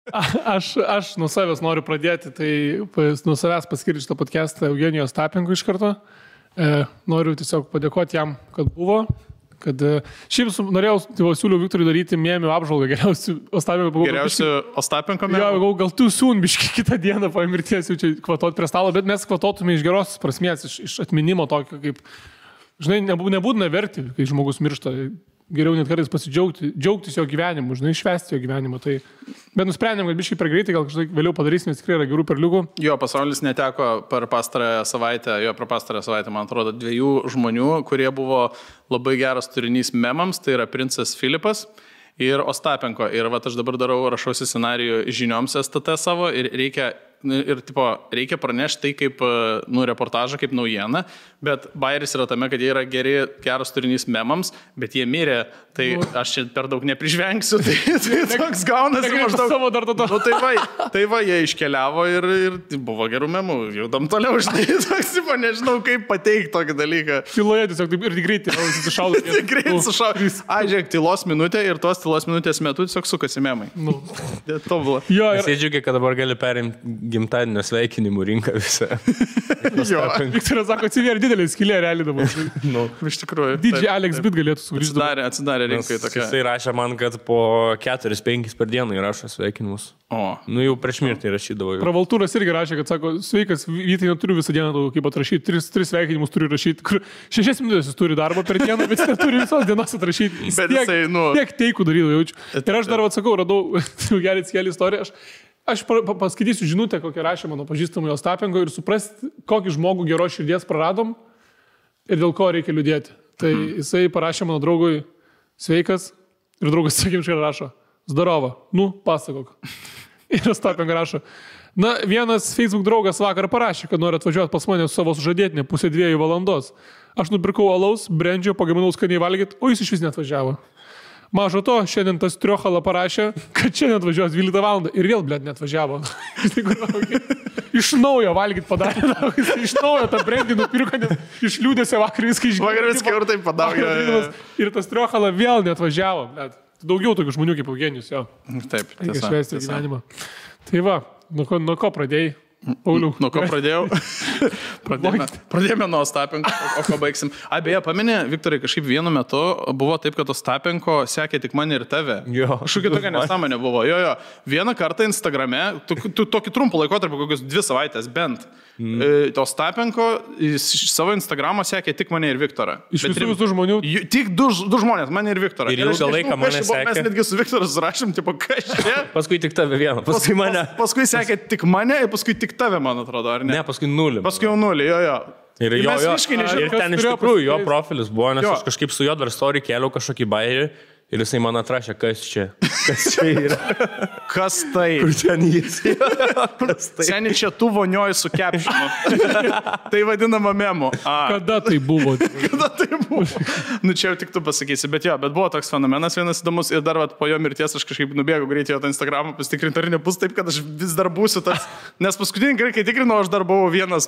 Aš nuo savęs noriu pradėti, tai nuo savęs paskirti šitą podcastą Eugenijos Tapenkui iš karto. Noriu tiesiog padėkoti jam, kad buvo. Kad šiaip norėjau, siūliau Viktorui daryti mėmių apžvalgą geriausių Ostapenko. Geriausių Ostapenko mėmių? Jo, gal tu biški kitą dieną po mirties jau čia kvatot prie stalo, bet mes kvatotume iš geros prasmės, iš atminimo tokio, kaip, žinai, nebūtina verti, kai žmogus miršta. Geriau net kartais džiaugtis jo gyvenimu, žinai, švęsti jo gyvenimą. Tai, bet nusprendėm, kad biškai per greitai, gal kažkaip vėliau padarysime, nes tikrai yra gerų perliukų. Jo, pasaulis neteko per pastarąją savaitę, man atrodo, 2 žmonių, kurie buvo labai geras turinys memams, tai yra princas Filipas ir Ostapenko. Ir aš dabar rašausi scenarijų žinioms STT savo ir reikia pranešti tai kaip reportažą, kaip naujieną, bet bairis yra tame, kad jie yra geras turinys memams, bet jie mirė, tai aš čia per daug neprižvengsiu, tai toks gaunasi maždaug. Tai va, jie iškeliavo ir buvo gerų memų, judam toliau, žinai, toks, nežinau, kaip pateikti tokį dalyką. Tyloje tiesiog taip ir greitai susišaudo. Greitai sušaudo. Žiūrėk, tylos minutė ir tos tylos minutės metu tiesiog sukasi memai. Tobula. Jis džiugiai, kad dabar gali perimti gimtadienio sveikinimų rinką visą. Viktoras sako, atsivėrė didelį skylę realiai dabar. Iš tikrųjų. DJ Alex Bit galėtų sugrįžti. Atsidarė rinkai tokia. Jisai rašė man, kad po 4-5 per dieną įrašo sveikinimus. Jau prieš mirtį rašydavo. Pravaltūras irgi rašė, kad sako, sveikas, Vytai, neturiu visą dieną kaip atrašyti, 3 sveikinimus turiu rašyti, kur 6 minutės jis turi darbo per dieną, bet jis neturi visos dienos atrašyti. Tiek teikų darydavo jaučiu. Ir aš dar atsakau, radau gerį skėlį istoriją. Aš paskaitysiu žinutę, kokią rašė mano pažįstamai Ostapenko ir suprasti, kokį žmogų geros širdies praradom ir dėl ko reikia liūdėti. Tai jisai parašė mano draugui sveikas ir draugas sakymčiai rašo zdarova, pasakok. Ir Ostapenko rašo, vienas Facebook draugas vakar parašė, kad nori atvažiuoti pas mane su savo sužadėtinė 1:30 valandos. Aš nupirkau alaus, brendžio, pagaminau skaniai valgyti, o jis iš vis neatvažiavo. Mažo to, šiandien tas Triochala parašė, kad šiandien atvažiuos 12 valandą ir vėl, neatvažiavo. Iš naujo valgyti padarė, iš naujo tą brendį nupirko, nes iš liūdėsio vakar viską išgirdo. Vakar viską ir taip padarė. Ir tas Triochala vėl neatvažiavo. Daugiau tokių žmonių kaip Eugenijus, jo. Taip, reikia švęsti gyvenimą. Tai va, nuo ko pradėjai? Pauliau. Nuo ko pradėjau? Pradėjome nuo Ostapenko, o ko baigsim. Beje, pameni, Viktorai, kažkaip vienu metu buvo taip, kad Ostapenko sekė tik mane ir tave. Kažkokia tokia nesąmonė buvo. Vieną kartą Instagrame, tokį trumpą laikotarpį, kokius 2 savaitės bent, Ostapenko savo Instagramą sekė tik mane ir Viktorą. Iš visų žmonių? Tik 2 žmonės, mane ir Viktorą. Ir ilgą laiką mane sekė. Mes netgi su Viktoru surašėm, kas čia. Paskui tik tave vieną, paskui mane. Paskui sekė tik mane ir paskui tik tave, man atrodo, ar ne? Ne, paskui 0. Paskui jau 0, jo. Ir ten iš tikrųjų jo profilis buvo, nes aš kažkaip su juo dar story kėliau kažkokį bairį ir jisai man atrašė, kas čia yra. Kas tai? Kur ten jis? Seniai čia tu vonioji su kepšinu. Tai vadinama memu. Kada tai buvo? Čia jau tik tu pasakysi, bet buvo toks fenomenas vienas įdomus ir dar po jo mirties aš kažkaip nubėgau greitai jo tą Instagramą pasitikrinti, ar nebus taip, kad aš vis dar būsiu tas. Nes paskutinį kartą, kai tikrinau, aš dar buvau vienas,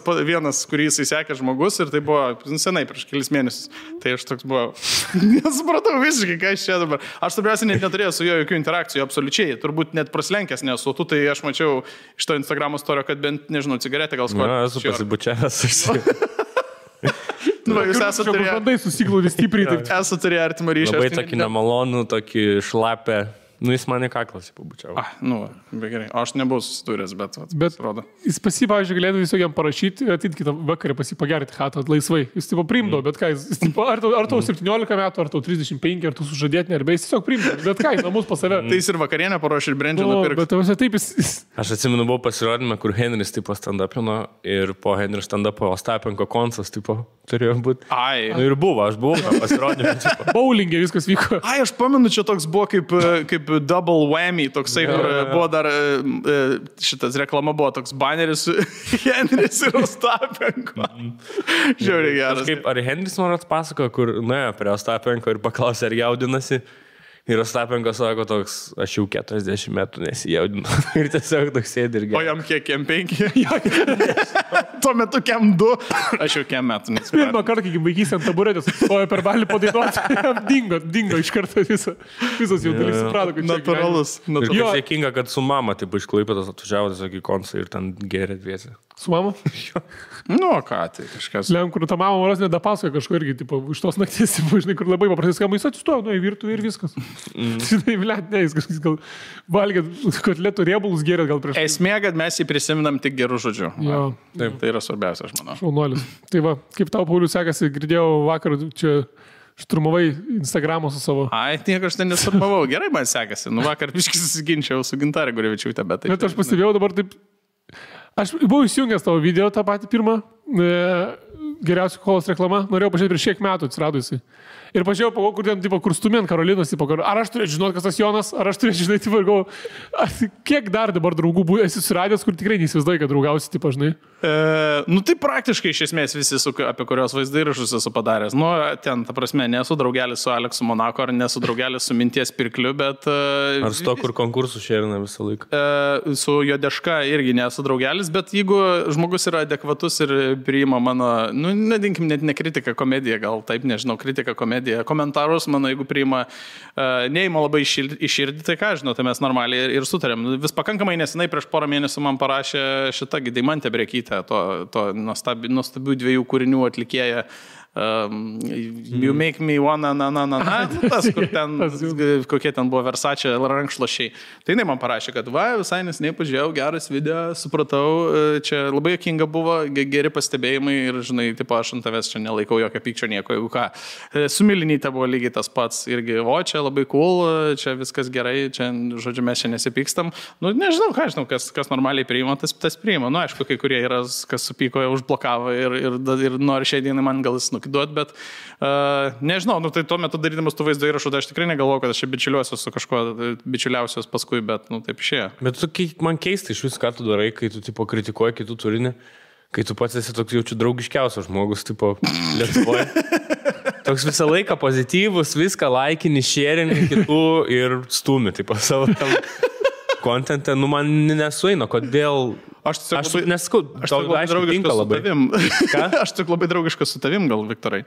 kurį jisai sekė žmogus ir tai buvo senai prieš kelis mėnesius. Tai aš toks buvau. Nesupratau visiškai, ką aš čia dabar. Aš svarbiausia net neturėjau su juo jokių interakcijų, absoliučiai. Turbūt net praslenkęs nesu. Tu tai aš mačiau iš to Instagramo storio, kad bent, nežinau, cigaretę gal skoti. Esu pasibučiavęs. Jūs esate turėję artimą ryšį. Labai tokį nemalonų, tokį šlapę. Jis mane kaklas pabučiavo. Be gerai. Aš nebuvau susidūręs, bet rodo. Jis pavyzdžiui, galėtų visokiam parašyti, ateit kitą vakarą pagerti chatą laisvai. Jis priimdavo, bet ką, ar tau 17 metų, ar tau 35, ar tu sužadėtinė, arba jis tiesiog priimdavo, bet ką, namus pas save. Tai jis ir vakarienę paruošė ir brendžio nupirkti. Bet taip jis... Aš atsimenu, buvau pasirodymą, kur Henris stand-upino ir po Henrio stand-upo Ostapenko koncas turėjo būti. Ir buvo, aš buvau pasirodymą. Bowlingė viskas vyko. Aš pamenu, čia toks buvo kaip double whammy, toksai, kur buvo dar šitas reklama buvo toks baneris Henris ir Ostapenko. Žiauriai geras. Ar Henris man atpasako, kur nuėjo prie Ostapenko ir paklausė, ar jaudinasi. Ir Ostapenko sako toks, aš jau 40 metų nesijaudinu. Ir tiesiog toks sėdi ir gerai. O jam kiek, kem 5? Tuo metu kem 2. Aš jau kem metų nesijaudinu. Pirmą kartą, kai vaikys ant taburetės, stojo per balį padainuoti, dingo iš karto visas jaudulys, suprato, kad natūralus. Ir kaip sėkinga, kad su mama, taip iš Klaipėdos atvažiavo tiesiog į koncą ir ten gėrė dviesi. Su mama? Nu, ką, tai kažkas. Lem, kur ta mama varos nedapasakoja kažko irgi, tipo, iš tos nakties, žinai, kur labai paprastai skamba, jis atsistojo, nu, į virtuvę ir viskas. Žinai, blėt, ne, jis gal valgė kotletų riebalus gėrė gal prieš. Esmė, kad mes jį prisiminam tik gerų žodžių. Jo. Taip, tai yra svarbiausia, aš manau. Šaunuolis. Tai va, kaip tau, Paulius, sekasi, girdėjau vakar, čia šturmavai Instagramą su savo. Ai, nieko aš ten nesturmavau. Gerai man sekasi. Nu, vakar biškai susiginčiau su Gintarė Gurevičiūtė, bet taip. Bet aš pastebėjau dabar taip. Aš buvau įsijungęs tavo video, tą patį pirmą, geriausių kolos reklama, norėjau pažiūrėti prieš kiek metų atsiradusi. Ir pažiūrėjau, kur ten, tipo, kur stumė ant Karolinos, tipo, ar aš turėčiau žinoti, kas tas Jonas, ar aš turėčiau žinoti, tipo, ir galvoju, kiek dar dabar draugų esi suradęs, kur tikrai neįsivaizduoji, kad draugausi, tipo, žinai. Nu, tai praktiškai iš esmės visi, apie kurios vaizdą įrašus esu padaręs. Nu, ten, ta prasme, nesu draugelis su Aleksu Monako, ar nesu draugelis su Minties Pirkliu, bet... Ar su to, kur konkursų šerina visą laiką? Su Jodeška irgi nesu draugelis, bet jeigu žmogus yra adekvatus ir priima mano, nu, nedinkim, net ne kritika, komedija, gal taip, nežinau, kritika, komedija, komentarus, mano, jeigu priima, neima labai iširdį, tai ką, žinau, tai mes normaliai ir sutarėm. Vis pakankamai nesenai prieš porą mėnesių man parašė šitą Deimantė Brekytė, to nuostabių 2 kūrinių atlikėja. You make me wanna, tas, kur ten, kokie ten buvo Versace rankšluošiai. Tai jinai man parašė, kad visai neseniai pažiūrėjau, geras video, supratau, čia labai juokinga buvo, geri pastebėjimai ir, žinai, tipo, aš ant tavęs čia nelaikau jokio pykčio nieko, jeigu ką. Su Milinyte buvo lygiai tas pats irgi, čia labai cool, čia viskas gerai, čia, žodžiu, mes čia nesipykstam. Nu, nežinau, ką žinau, kas normaliai priima, tas priima. Nu, aišku, kai kurie yra, kas supyko, užblokavo ir nori šiai dienai man gal jis duot, bet nežinau, nu, tai tuo metu darydamas tų vaizdo įrašų, tai aš tikrai negalvoju, kad aš bičiuliuosiu su kažkuo bičiuliausios paskui, bet, nu, taip išėjo. Bet man keista iš vis, ką tu darai, kai tu, tipo, kritikuoji kitų turinį, kai tu pats esi toks jaučiu draugiškiausias žmogus, tipo, Lietuvoje. Toks visą laiką pozityvus, viską laikini, sharingi kitų ir stumi, tipo, savo tam kontentą, nu, man nesueina, kodėl... Aš nesakau, tau aišku tinka labai. Aš tik labai draugiškas su tavim, gal, Viktorai.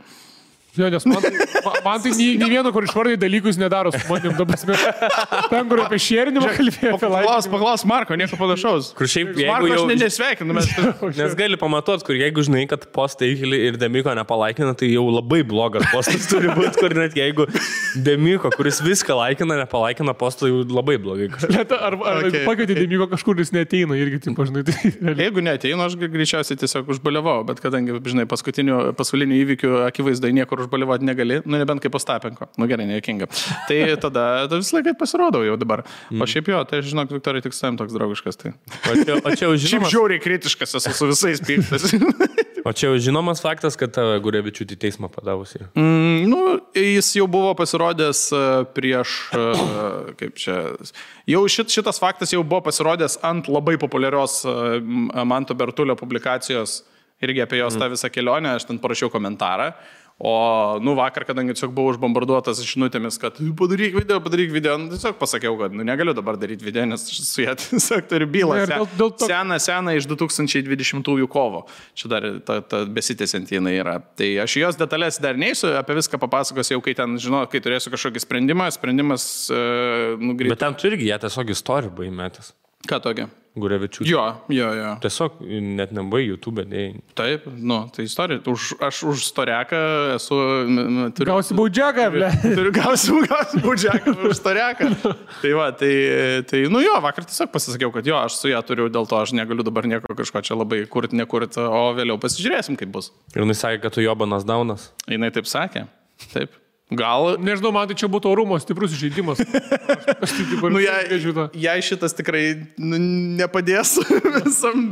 Jo, nes man tai nei vieno, kur išvardai dalykus nedaro su manim. Ten, kur apie šėrinimą kalbėjo. Paklaus Marko, nieko panašaus. Kur šiaip, Marko aš nesveikinu. Nes gali pamatuot, kur jeigu žinai, kad postai ir Demiko nepalaikina, tai jau labai blogas postas turi būti, kur net jeigu Demiko, kuris viską laikina, nepalaikina postą, jau labai blogai. Ar pakvietė Demiko kažkur, jis neateina irgi, taip, žinai. Jeigu neateina, aš greičiausiai tiesiog užbaliavau, bet kadangi, žinai, paskutinių įvykių akivaizdai niekur užbaliavoti negali, nu nebent kaip Ostapenko. Nu gerai, nejuokinga. Tai tada visą laiką pasirodau jau dabar. O šiaip jo, tai žinok, Viktorai, tik savim toks draugiškas. Tai. O čia jau žinomas... Šiaip žiauriai kritiškas esu su visais pyktas. O čia jau žinomas faktas, kad Gurevičiūtė teismą padavusi. Nu, jis jau buvo pasirodęs prieš, kaip čia, jau šitas faktas jau buvo pasirodęs ant labai populiarios Manto Bertulio publikacijos irgi apie jos tą visą kelionę, aš ten parašiau komentarą. O, nu, vakar, kadangi tiesiog buvau užbombarduotas žinutėmis, kad padaryk video, nu, tiesiog pasakiau, kad negaliu dabar daryti video, nes su ją tiesiog turiu bylą. Seną iš 2020 kovo. Čia dar ta besitęsianti jinai yra. Tai aš jos detalės dar neįsiu, apie viską papasakosiu jau, kai ten, žinau, kai turėsiu kažkokį sprendimas Bet ten tu irgi ją tiesiog istorijų buvai metęs. Ką tokia? Gurevičiūtė. Jo. Tiesiog net nebuvai YouTube dėjai. Taip, nu, tai istorija. Aš už storiaką esu... Gausi baudžiaką, ble. Gausi baudžiaką už storiaką. Tai va, tai, nu jo, vakar tiesiog pasisakiau, kad jo, aš su ją turiu, dėl to aš negaliu dabar nieko kažko čia labai nekurt, o vėliau pasižiūrėsim, kaip bus. Ir jinai sakė, kad tu Jobanas Daunas. Jinai taip sakė. Taip. Gal... Nežinau, man tai čia būtų orumo stiprus žaidimas. Jei šitas tikrai nepadės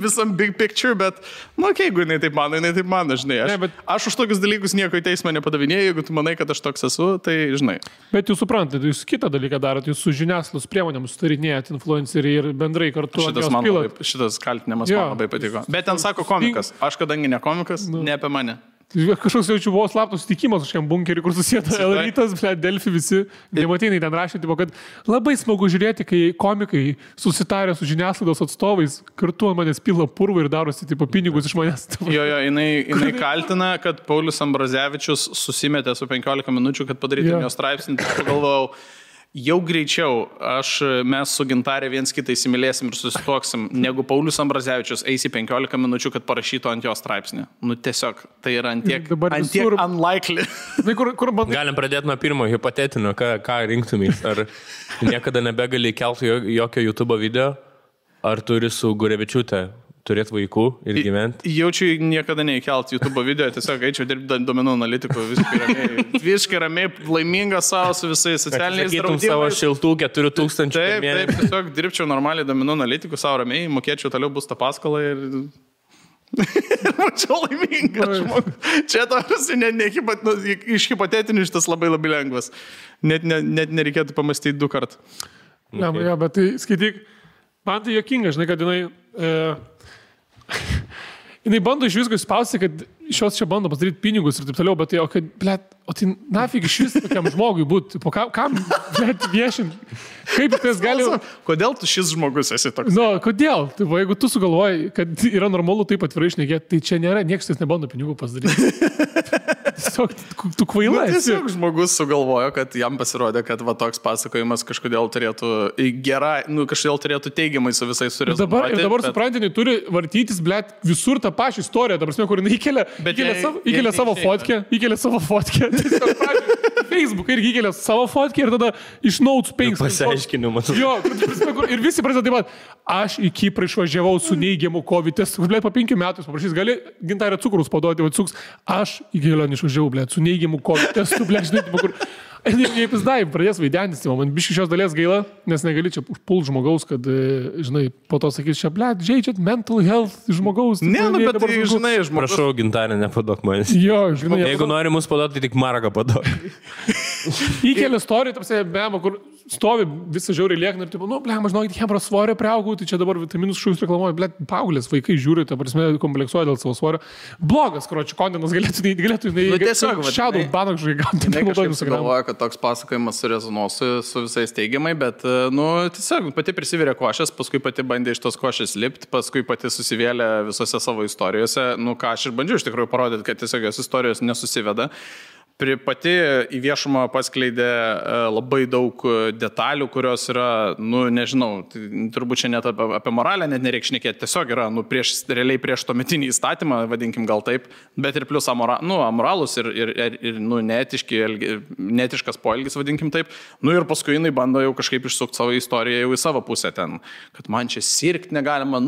visam big picture, bet, nu, jeigu jinai taip mano, žinai. Aš už tokius dalykus nieko į teismą nepadavinėjau, jeigu tu manai, kad aš toks esu, tai žinai. Bet jūs suprantate, jūs kitą dalyką darot, jūs su žiniasklaidos priemonėms sutarinėjat influenceriai ir bendrai kartu. Šitas kaltinimas man labai patiko. Bet ten sako komikas. Aš kadangi ne komikas, ne apie mane. Kažkoks jaučiu buvo slaptos sutikimas kažkam bunkerį, kur susėda Elrytas, Delfi visi. Nematinai ten rašė, tipo, kad labai smagu žiūrėti, kai komikai susitarė su žiniasklaidos atstovais, kartu ant manęs pila purvą ir darosi tipo, pinigus iš manęs. Jo, jinai kaltina, kad Paulius Ambrazevičius susimetė su 15 minučių, kad padarytų jo straipsnį. Pagalvojau, jau greičiau mes su Gintarė viens kitą įsimylėsim ir susituoksim, negu Paulius Ambrazevičius eis į 15 minučių, kad parašytų ant jo straipsnį. Nu tiesiog, tai yra antiek unlikely. Galim pradėti nuo pirmo hipotetinio, ką rinktumės. Ar niekada nebegali kelti jokio YouTube video, ar turi su Gurevičiūte turėti vaikų ir gyventi? Jaučiu niekada neįkelt YouTube video, tiesiog eičiau dirbti duomenų analitikų visiškai ramiai, laimingas savo su visais socialiniais draudimais. Savo šiltų 4000 per mėnesį. Taip, tiesiog dirbčiau normaliai duomenų analitikų savo ramiai, mokėčiau toliau būsto paskolą ir... Mačiau laimingas žmogus. Čia tarsi iš hipotetinių šitas labai lengvas. Net nereikėtų pamastyti 2 kartus. Ja, bet tai skaityk, man tai juokinga, žinai, kad jinai bando iš visko spausti, kad šios čia bando padaryti pinigus ir taip toliau, bet tai nafig iš vis tokiam žmogui būti, kam viešinti, kaip tas gali... Kodėl tu šis žmogus esi toks? Nu, kodėl? Tai, jeigu tu sugalvoji, kad yra normalu taip atvirai šnekėti, tai čia nėra, niekas nebando pinigų pasidaryti. Tiesiog, tu kvaila esi. Tiesiog žmogus sugalvojo, kad jam pasirodė, kad va toks pasakojimas kažkodėl turėtų kažkodėl turėtų teigiamai su visais surezonuoti. Ir dabar suprantinai turi vartytis, visur tą pačią istoriją, dabar kur įkelia savo fotkę, Facebook irgi įkelia savo fotkę ir tada iš notes 5. Pasiaiškinimas. Jo, ir visi prasideda taip pat, aš į Kiprą išvažiavau su neigiamu COVID testu, po 5 metų paprašys, gali Gintarė cukrus paduoti, aš į kelionę išvažiavau, su neigiamu COVID testu, žinai, kur... Jei pizdai, pradės vaidentis, man biškai šios dalies gaila, nes negali čia užpult žmogaus, kad, žinai, po to sakys, čia, žaidžiat mental health žmogaus. Ne, bet tai, žinai, žmogus. Prašau, Gintarė, nepadok manęs. Jo, žinai. Jeigu nori mus paduoti, tai tik maragą padok. Įkelia istoriją, tarsi, bema, kur stovi visą žiauriai liekna ir taip, žinokit, hebros svorio priaugau, tai čia dabar vitaminus šūs reklamuoja, paauglės vaikai žiūri, ta prasme, kompleksuoja dėl savo svorio. Blogas, kročių, kontenas galėtų, šiaudų banak žai toks pasakojimas surezonuos su visais teigiamai, bet, tiesiog pati prisivirė košės, paskui pati bandė iš tos košės lipti, paskui pati susivėlė visose savo istorijose, ką aš ir bandžiau iš tikrųjų parodyti, kad tiesiog jos istorijos nesusiveda. Pati į viešumą paskleidė labai daug detalių, kurios yra, nežinau, turbūt čia net apie moralę net nereikia šnekėti, tiesiog yra, realiai prieš tuometinį įstatymą, vadinkim gal taip, bet ir plus amoralus ir neetiškas poelgis, vadinkim taip, ir paskui jinai bando jau kažkaip išsukti savo istoriją jau į savo pusę ten, kad man čia sirgti negalima,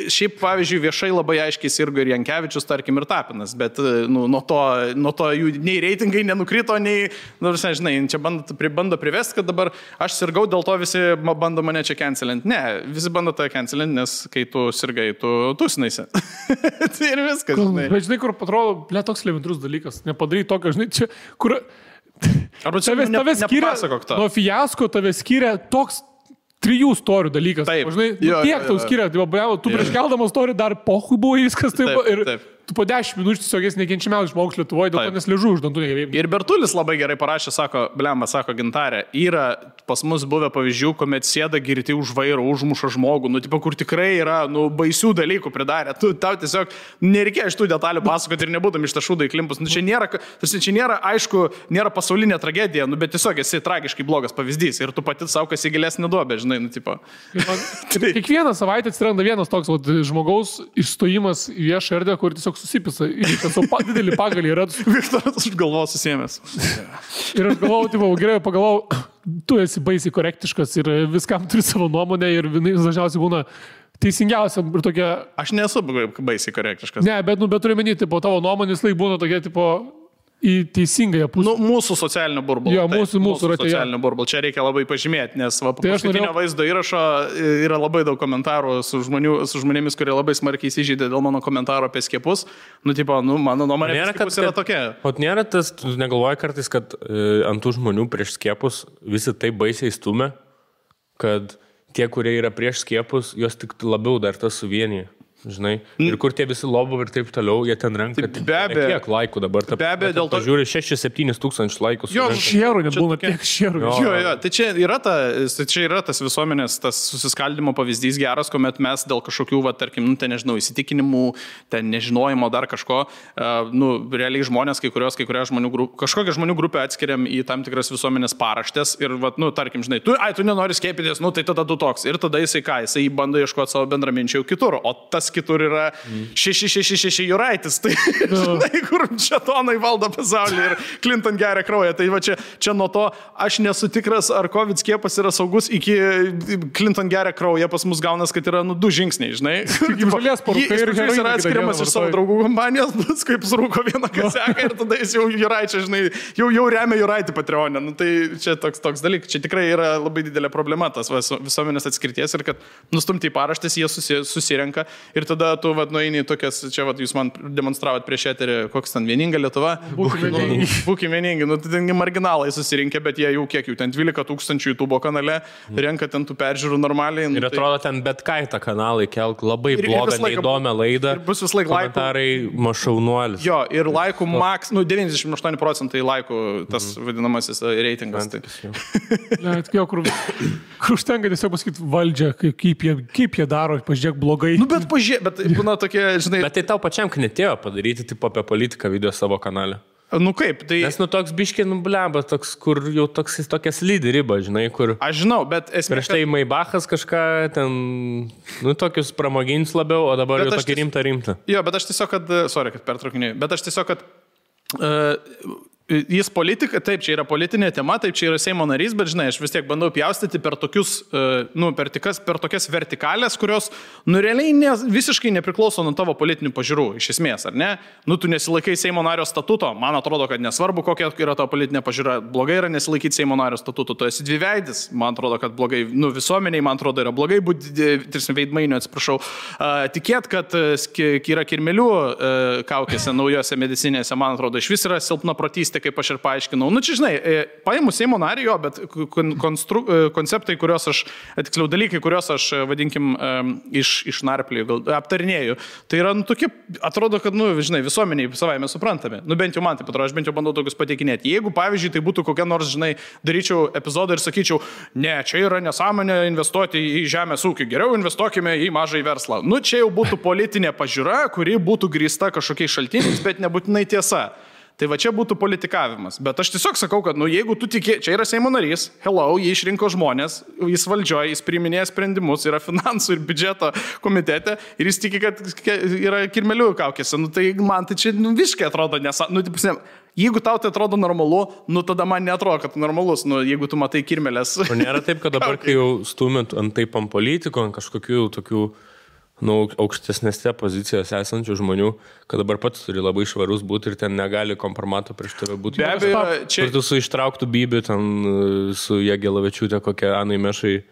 šiaip pavyzdžiui viešai labai aiškiai sirgo ir Jankevičius, tarkim, ir Tapinas, bet nuo to jų nei reitingai nenukrito, nei, žinai, čia bando privesti, kad dabar aš sirgau, dėl to visi bando mane čia cancelinti. Ne, visi bando tą cancelinti, nes kai tu sirgai, tu tusinaisi. Tai ir viskas, žinai. Bet žinai, kur atrodo, toks elementarus dalykas, nepadaryti tokio, žinai, čia, kur... Arba čia tave skiria, nuo fiasko tave skiria toks 3 istorijų dalykas. Taip. Žinai, tiek tau skiria, tu prieš keldamas istoriją dar pohui buvo viskas taip. Taip. Tu po 10 minučių tiesiog esi nekenčiamiausias žmogus Lietuvoje, dėl to nes liežu už dantų negebėjai. Ir Bertulis labai gerai parašė, sako Gintarė, yra pas mus buvę pavyzdžių, kuomet sėda girti už vairo, užmuša žmogų, kur tikrai yra, baisių dalykų pridarė. Tau tiesiog nereikėjo iš tų detalių pasakoti ir nebūtum iš tašų daiklimpus. Čia nėra, aišku, nėra pasaulinė tragedija, bet tiesiog esi tragiškai blogas pavyzdys ir tu pati savo kas į gilesnį duobę, žinai, Kiekvieną savaitę atsiranda vienas toks žmogaus išstojimas į viešą erdvę, kur tiesiog susipisa, didelį pagalį yra. Viktoras už galvos susėmęs. Ir aš galvojau, gerai, pagalvojau, tu esi baisiai korektiškas ir viskam turi savo nuomonę ir dažniausiai būna teisingiausia ir tokia... Aš nesu baisiai korektiškas. Ne, bet turiu menyti, tavo nuomonės laik būna tokia, į teisingąją pusę. Mūsų socialinio burbulo. Jo, mūsų socialinio burbulo. Čia reikia labai pažymėti, nes po paskutinio vaizdo įrašo yra labai daug komentarų su žmonėmis, kurie labai smarkiai įsižeidė dėl mano komentaro apie skiepus. Mano nuomonė apie skiepus yra tokia. O nėra tas, tu negalvoji kartais, kad ant tų žmonių prieš skiepus visi taip baisiai stumia, kad tie, kurie yra prieš skiepus, jos tik labiau dar tas suvienyje. žinai, ir kur tie visi lobo ir taip toliau, jie ten renka. Tai be abejo. Kiek laikų dabar? Be abejo, dėl to... Žiūri 6-7 tūkstančių laikų. Jo, šierų nebūna tiek šierų. Jo, tai čia yra tas visuomenės, tas susiskaldimo pavyzdys geras, kuomet mes dėl kažkokių, tarkim, ten nežinau, įsitikinimų, ten nežinojimo dar kažko, realiai žmonės, kažkokią žmonių grupę atskiriam į tam tikras visuomenės paraštės ir, tarkim, žinai, tu nenori skiepytis, tai tada tu toks. Ir tada jisai bando ieškoti savo bendraminčių kitur, o tas kitur yra 666 Juraitis, tai žinai, kur šetonai valdo pasaulį ir Clinton geria kraują. Tai va čia nuo to aš nesu tikras, ar COVID skiepas yra saugus, iki Clinton geria kraują, pas mus gaunas, kad yra 2 žingsniai, žinai. Jis yra atskiriamas iš savo draugų kompanijos, kaip surūko vieną kaseką ir tada jis jau Juraičia, žinai, jau remia Juraitį Patreonę. Tai čia toks dalykas, čia tikrai yra labai didelė problema, tas visuomenės atskirties ir kad nustumti į paraštės, jie susirenka. Ir tada tu nueini tokias, čia jūs man demonstravot prieš eterį, koks ten vieninga Lietuva. Būkim vieningi. Tai marginalai susirinkę, bet jie jau kiek, ten 12 000 YouTube kanale, renka ten tų peržiūrų normaliai. Ir atrodo ten bet ką į tą kanalą kelk, labai blogą, neįdomią laidą. Ir bus vis laik laikų. Komentarai mašaunuolis. Jo, ir laikų maks, 98% laikų tas vadinamasis reitingas. Kur užtenka tiesiog pasakyti valdžią, kaip jie daro, pažiūrėk blogai. Bet būna tokie, žinai... Bet tai tau pačiam knetėjo padaryti tipo apie politiką video savo kanale. Kaip, tai... Nes toks biškė nubleba, toks, kur jau tokia slidi riba, žinai, kur... Aš žinau, bet esmė... Prieš tai Maybachas kažką ten, tokius pramoginius labiau, o dabar jau tokį rimtą. Jo, bet aš tiesiog, kad pertraukinėjau, bet aš tiesiog, jis politika, taip, čia yra politinė tema, taip, čia yra Seimo narys, bet žinai, aš vis tiek bandau pjaustyti per tokius, per tokias vertikalės, kurios, realiai visiškai nepriklauso nuo tavo politinių pažiūrų, iš esmės, ar ne? Tu nesilaikai Seimo nario statuto, man atrodo, kad nesvarbu, kokia yra tavo politinė pažiūra, blogai yra nesilaikyti Seimo nario statuto, tu esi dviveidis, man atrodo, kad blogai, visuomeniai, man atrodo, yra blogai būti, veidmainių, atsiprašau, tikėt, kad yra kirmelių kaukėse, naujose medicinėse, man atrodo, iš vis yra silpna protystė, kaip aš ir paaiškinau. Čia žinai, paimu Seimo narį, bet konceptai, dalykai, kuriuos aš, vadinkim, išnarplėjau, aptarinėjau, tai yra, tokie, atrodo, kad, žinai, visuomeniai savaime suprantame. Bent jau man taip atrodo, aš bent jau bandau tokius pateikinėti. Jeigu, pavyzdžiui, tai būtų kokia nors, žinai, daryčiau epizodą ir sakyčiau, ne, čia yra nesąmonė investuoti į žemės ūkį, geriau investuokime į mažą verslą. Čia jau būtų politinė pažiūra, kuri būtų grįsta kažkokiais šaltiniais, bet nebūtinai tiesa. Tai va čia būtų politikavimas. Bet aš tiesiog sakau, kad jeigu tu tiki, čia yra Seimo narys, jį išrinko žmonės, jis valdžioje, jis priiminėja sprendimus, yra finansų ir biudžeto komitete ir jis tiki, kad yra kirmelių kaukėse. Tai man tai čia visiškai atrodo jeigu tau tai atrodo normalu, tada man neatrodo, kad normalus, jeigu tu matai kirmelės. Nėra taip, kad dabar, kai jau stumėt ant politiko, ant kažkokių tokių aukštesnėse pozicijose esančių žmonių, kad dabar pats turi labai švarus būti ir ten negali kompromato prieš tave būti. Be abejo, čia... Ir tu su ištrauktų Bibi, ten su Jagelavičiūtė, kokia Anai Mešai.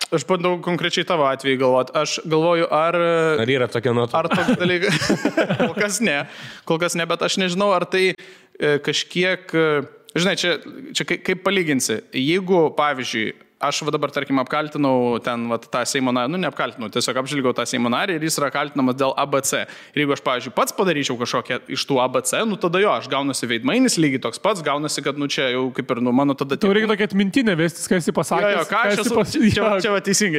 Aš bandau konkrečiai tavo atveju galvoti. Aš galvoju, ar yra tokia nuotrauka? Ar toks dalykas? Kol kas ne, bet aš nežinau, ar tai kažkiek... Žinai, čia kaip palyginsi. Jeigu, pavyzdžiui, aš dabar, tarkim, apkaltinau ten tą Seimo narį, neapkaltinau, tiesiog apžilgiau tą Seimo narį ir jis yra kaltinamas dėl ABC. Ir jeigu aš, pavyzdžiui, pats padaryčiau kažkokią iš tų ABC, tada jo, aš gaunasi veidmainis, lygiai toks pats, gaunasi, kad, čia jau kaip ir, mano tada... Tau reikia tokia atmintinė vestis, ką esi pasakęs. Jo, ką aš esu...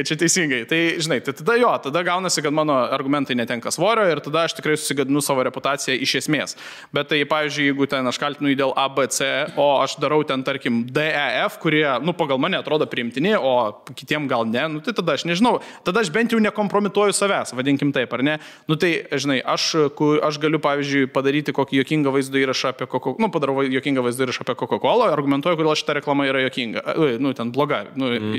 Čia teisingai. Tai, žinai, tada gaunasi, kad mano argumentai netenka svorio ir tada aš tikrai susigadinu savo reputaciją iš esmės. Bet tai, pavyzdžiui, jeigu ten aš kaltinu į dėl ABC, o aš darau ten, tarkim, DEF, kurie, pagal mane atrodo priimti, o kitiem gal ne, tai tada aš nežinau, tada aš bent jau nekompromituoju savęs, vadinkim taip, ar ne? Tai, žinai, aš galiu, pavyzdžiui, padaryti kokį jokingą vaizdo įrašą apie Coca-Cola, padarau jokingą vaizdo įrašą apie Coca-Cola, argumentuoju, kodėl šita reklama yra jokinga, ten bloga,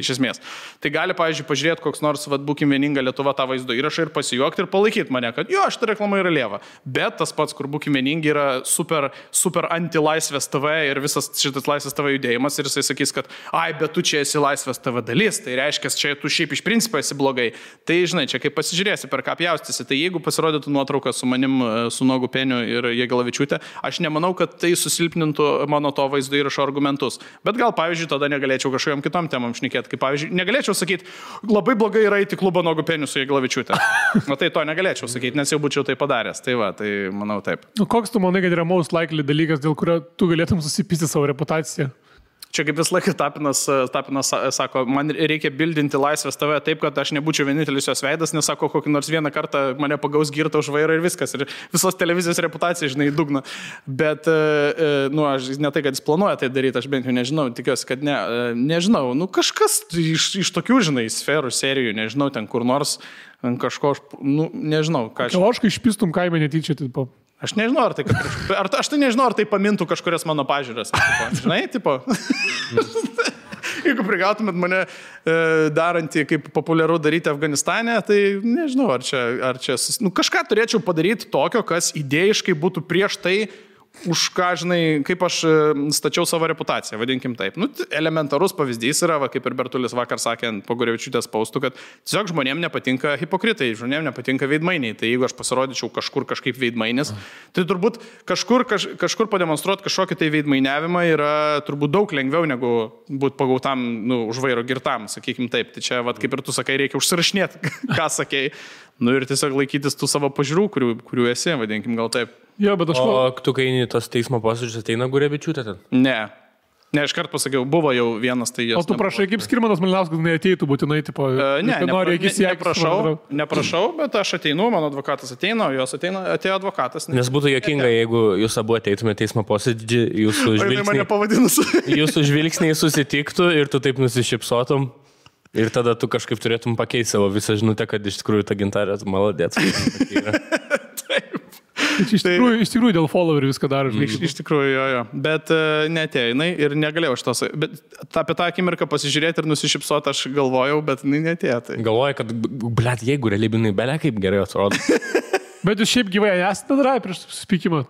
iš esmės. Tai gali, pavyzdžiui, pažiūrėti koks nors, būkim vieninga Lietuva tą vaizdo įrašą ir pasijuokti ir palaikyti mane, kad jo, šita reklama yra lieva. Bet tas pats, kur būkim vieningi, yra super anti-laisvės TV ir visas šitas laisvės TV judėjimas ir jisai sakys, kad bet tu čia esi laisvės laisvės TV dalis, tai reiškia, čia tu šiaip iš principo esi blogai. Tai, žinai, čia kaip pasižiūrėsi, per ką pjaustysi, tai jeigu pasirodytų nuotrauka su manim, su Nuogu Peniu ir Jagelavičiūtė, aš nemanau, kad tai susilpnintų mano to vaizdo įrašo argumentus. Bet gal, pavyzdžiui, tada negalėčiau kažkokiam kitom temam šnekėti, kaip, pavyzdžiui, negalėčiau sakyti, labai blogai yra įti klubą Nuogu Peniu su Jagelavičiūtė. O tai to negalėčiau sakyti, nes jau būčiau tai padaręs. Tai va, tai manau taip. Koks tu manai, kad yra most likely dalykas, dėl kurio tu galėtum susipysti savo reputaciją? Čia kaip vis laikas Tapinas sako, man reikia bildinti laisvės TV taip, kad aš nebūčiau vienintelis jos veidas, nes sako, kokį nors vieną kartą mane pagaus girtą už vairą ir viskas. Ir visos televizijos reputacija, žinai, dugna. Bet, aš ne tai, kad jis planuoja tai daryti, aš bent jau nežinau, tikiuosi, kad ne. Nežinau, kažkas iš tokių, žinai, sferų, serijų, nežinau, ten kur nors kažko, nežinau, ką aš... Oškai išpistum kaime netyčia, tipo. Aš nežinau, aš tai nežinau, ar tai pamintų kažkurias mano pažiūras. Žinai, tipo. Jeigu prigautumėt mane darantį, kaip populiaru daryti Afganistane, tai nežinau, ar čia kažką turėčiau padaryti tokio, kas idėjiškai būtų prieš tai, už ką, žinai, kaip aš stačiau savo reputaciją, vadinkim taip. Elementarus pavyzdys yra, kaip ir Bertulis vakar sakė po Gurevičiūtės paustų, kad tiesiog žmonėms nepatinka hipokritai, žmonėms nepatinka veidmainiai. Tai jeigu aš pasirodyčiau kažkur kažkaip veidmainis, tai turbūt kažkur pademonstruoti kažkokį tai veidmainiavimą yra turbūt daug lengviau negu būti pagautam už vairo girtam, sakykim taip. Tai čia, kaip ir tu sakai, reikia užsirašinėti, ką sakei. Ir tiesiog laikytis tų savo pažiūrų, kurių esi, vadinkim gal taip. Jo, bet O tu, kai tos teismo posėdžius ateina Gurevičiūtė ten? Ne, iškart pasakiau, buvo jau vienas tai jos. O tu prašai, kaip Skirmantas Malinauskas neateitų būtinai, tipo, neprašau, bet aš ateinu, mano advokatas ateina, o jos atėjo advokatas. Nes būtų juokinga, jeigu jūs abu ateitumėte teismo posėdžį, jūsų žvilgsniai susitiktų ir tu taip nusišypsotum. Ir tada tu kažkaip turėtum pakeisti savo visą žinutę, kad iš tikrųjų ta Gintarė maladėt. Taip. Iš tikrųjų dėl followerių viską daro. Iš tikrųjų, jo. Bet neatėjo jinai ir negalėjau šitos. Bet apie tą akimirką pasižiūrėti ir nusišypsoti aš galvojau, bet jinai neatėjo. Tai. Galvoju, kad, jeigu realybinai belia kaip gerai atrodo. Bet jūs šiaip gyvai esate darai prieš susitikimą?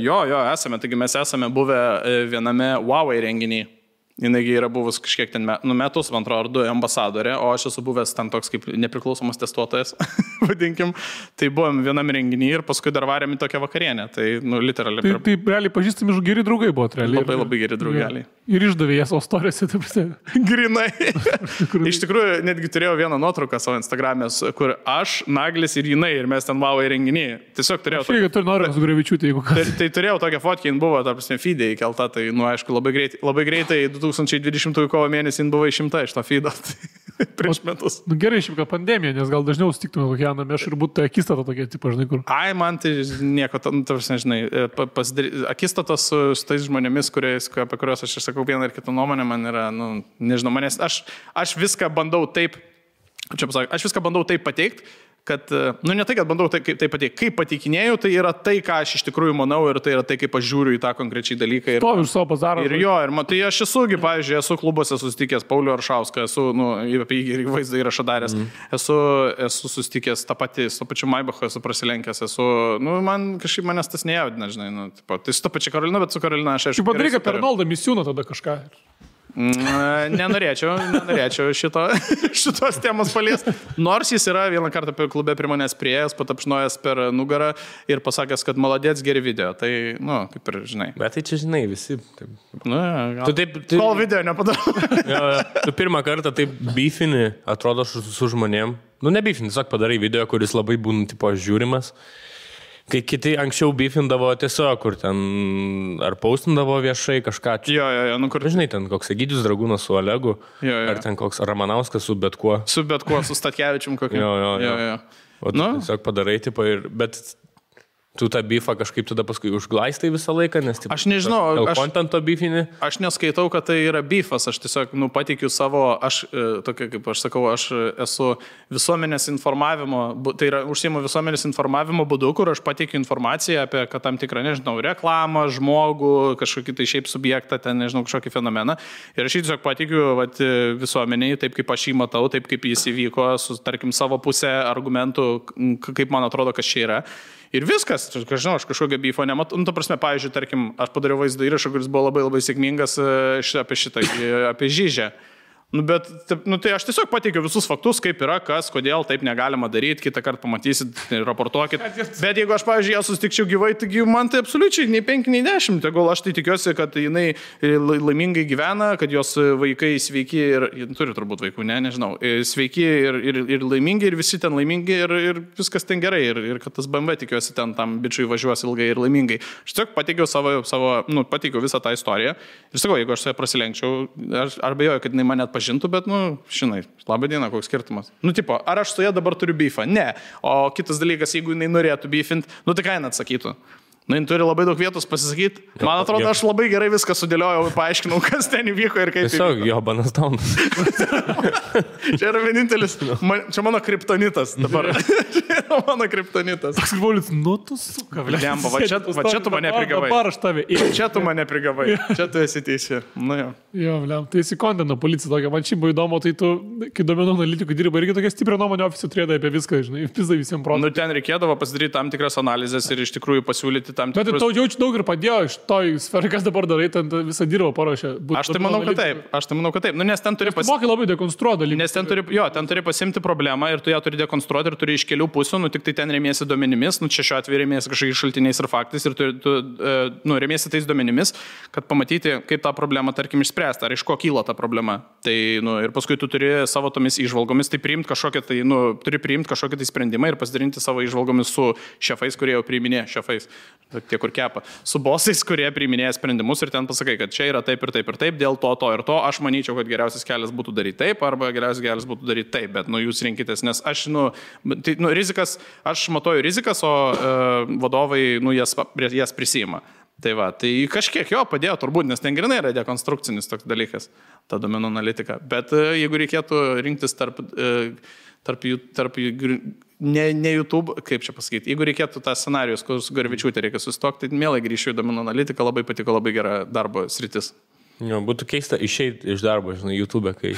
Jo, esame. Taigi mes esame buvę viename Huawei renginį. Jinai yra buvus kažkiek ten metus, man atrodo, ar 2 ambasadorė, o aš esu buvęs ten toks kaip nepriklausomas testuotojas, vadinkim. Tai buvom vienam renginį ir paskui dar varėm į tokią vakarienę. Tai, literaliai. Tai realiai pažįstami geri draugai buvo, realiai. Labai geri draugai. Ir išdavė jas savo storiose, taip pat. Grinai. Iš tikrųjų, netgi turėjau vieną nuotrauką savo Instagram'e, kur aš, Naglis ir jinai, ir mes ten Huawei renginį. Tiesiog turėjau... Aš tu nori su Gurevičiūtė, jeigu ką. Tai turėjau tokią fotkę, jin buvo, tarp feed'e įkelta, tai, aišku, labai greitai 2020 kovo mėnesį jin buvo išimta iš to feed'o. Prieš metus. Gerai, šiaip ką pandemija, nes gal dažniau sutiktume kokią namę ir būtų akistata tokia, tipo, žinai, kur. Ai, man tai nieko, nežinai, akistatos su tais žmonėmis, apie kuriuos aš išsakau vieną ir kitą nuomonę, man yra, nežinau, manęs, aš viską bandau taip, aš viską bandau taip pateikti, kad, ne tai, kad bandau tai pateikti, kaip pateikinėjau, tai yra tai, ką aš iš tikrųjų manau ir tai yra tai, kaip aš žiūriu į tą konkrečiai dalyką. To iš savo bazaro. Ir tai aš esugi, pavyzdžiui, esu klubuose susitikęs Paulių Aršauską, esu, apie jį vaizdą įrašą daręs, esu susitikęs tą patį, su pačiu Maibachu esu prasilenkęs, man kažkaip manęs tas nejaudina, žinai, tai su ta pačia Karolina, bet su Karolina aš aišku. Kaip padaryka per Arnoldą Misiūną tada kažką. Nenorėčiau šitos temos paliesti. Nors jis yra vieną kartą klube prie manęs priėjęs, patapšnojęs per nugarą ir pasakęs, kad maladėts geri video. Tai, kaip ir žinai. Bet tai čia žinai visi. Kol video nepadarau. Tu pirmą kartą taip beefini, atrodo, su žmonėm. Ne beefini, tiesiog padarai video, kuris labai būna tipo žiūrimas. Kai kiti anksčiau beefindavo tiesiog, kur ten ar paustindavo viešai kažką. Kur... Žinai, ten koks Egidijus Dragūnas su Olegu, ar ten koks Ramanauskas su bet kuo. Su Statkevičium kokiu. O tu tiesiog padarai, tipo, bet tu tą beefą kažkaip tada paskui užglaistai visą laiką, nes aš nežinau, kontento beefinį. Aš neskaitau, kad tai yra beefas, aš tiesiog pateikiu savo, tokia kaip aš sakau, aš esu visuomenės informavimo, tai yra užsiimu visuomenės informavimo būdu, kur aš pateikiu informaciją apie tam tikrą, nežinau, reklamą, žmogų, kažkokį tai šiaip subjektą, ten, nežinau, kažkokį fenomeną. Ir aš tiesiog pateikiu visuomeniai, taip kaip aš jį matau, taip kaip jis įvyko, su, tarkim, savo pusę argumentų, kaip man atrodo, kas čia yra. Ir viskas, aš kažkokio beefo nematau. Ta prasme, pavyzdžiui, tarkim, aš padariau vaizdo įrašą, kuris buvo labai labai sėkmingas apie Žyžę. Nu, bet, tai aš tiesiog pateikiu visus faktus, kaip yra, kas, kodėl taip negalima daryti, kitą kartą pamatysit, raportuokit. Bet jeigu aš, pavyzdžiui, ją susitikčiau gyvai, taigi man tai absoliučiai nei 5, nei 10. Tegul aš tai tikiuosi, kad jinai laimingai gyvena, kad jos vaikai sveiki ir turi turbūt vaikų, nežinau, sveiki ir laimingi, ir visi ten laimingi, ir viskas ten gerai, ir kad tas BMW tikiuosi ten tam bičiui važiuos ilgai ir laimingai. Aš tiesiog pateikiau pateikiau visą tą istoriją. Ir sakau, jeigu aš su ja prasilenkčiau, aš abejoju, kad jinai mane atpažintų, bet, žinai, labą dieną, koks skirtumas. Tipo, ar aš su ja dabar turiu beefą? Ne. O kitas dalykas, jeigu jinai norėtų beefint, tai ką jinai atsakytų? Jin turi labai daug vietos pasisakyti. Man atrodo, aš labai gerai viską sudėliojau ir paaiškinau, kas ten įvyko ir kaip. Tiesiog Jobanas Daunas. Čia yra vienintelis, čia mano kriptonitas dabar. Čia yra mano kriptonitas. Toks Paulius, tu suka, Lemba, va čia tu mane prigavai. Dabar aš tave. Čia tu mane prigavai. Čia tu esi teisi. Jo, Lem, tai įsikondino policija tokia. Man šiaip buvo įdomu, tai tu, kai duomenų analitikų dirba, irgi tokia stiprią nuomonę ofisų turėdai apie viską, žinai, pizda visiems protų. Ten reikėdavo pasidaryti tam tikras analizės ir iš tikrųjų pasiūlyti tam tikrus. Bet tau jaučiu daug ir padėjo iš to sferai, kas dabar darai, ten visą dirbą paruošė. Aš tai manau, kad taip. Nes ten turi mokai labai dekonstruoti dalykus. Nes ten turi pasimti problemą ir tu ją turi dekonstruoti ir turi iš kelių pusių, tik tai ten remiesi duomenimis, čia šiuo atveju remiesi kažkokiais šaltiniais ir faktais ir tu remiesi tais duomenimis, kad pamatyti, kaip tą problemą, tarkim, išspręsti, ar iš ko kyla ta problema. Tai, ir paskui tu turi savo tomis įžvalgomis, tai priimti kažkokią tai sprendimą ir pasidalinti savo įžvalgomis su šefais, kurie jau priiminė šefais, tie, kur kepa, su bosais, kurie priiminėja sprendimus ir ten pasakai, kad čia yra taip ir taip ir taip, dėl to ir to, aš manyčiau, kad geriausias kelias būtų daryti taip, arba geriausias kelias būtų daryti taip, bet jūs rinkitės, nes aš, rizikas, aš matuoju rizikas, o vadovai, jas prisima. Tai va, tai kažkiek jo padėjo turbūt, nes ten grinai yra dekonstrukcinis toks dalykas, ta duomenų analitika. Bet jeigu reikėtų rinktis tarp ne YouTube, kaip čia pasakyti, jeigu reikėtų tą scenarijus, kur su Garvičiūtė reikia susitokti, tai mielai grįšiu į duomenų analitiką, labai patiko, labai gera darbo sritis. Jo, būtų keista išeiti iš darbo, žinai, YouTube, kai...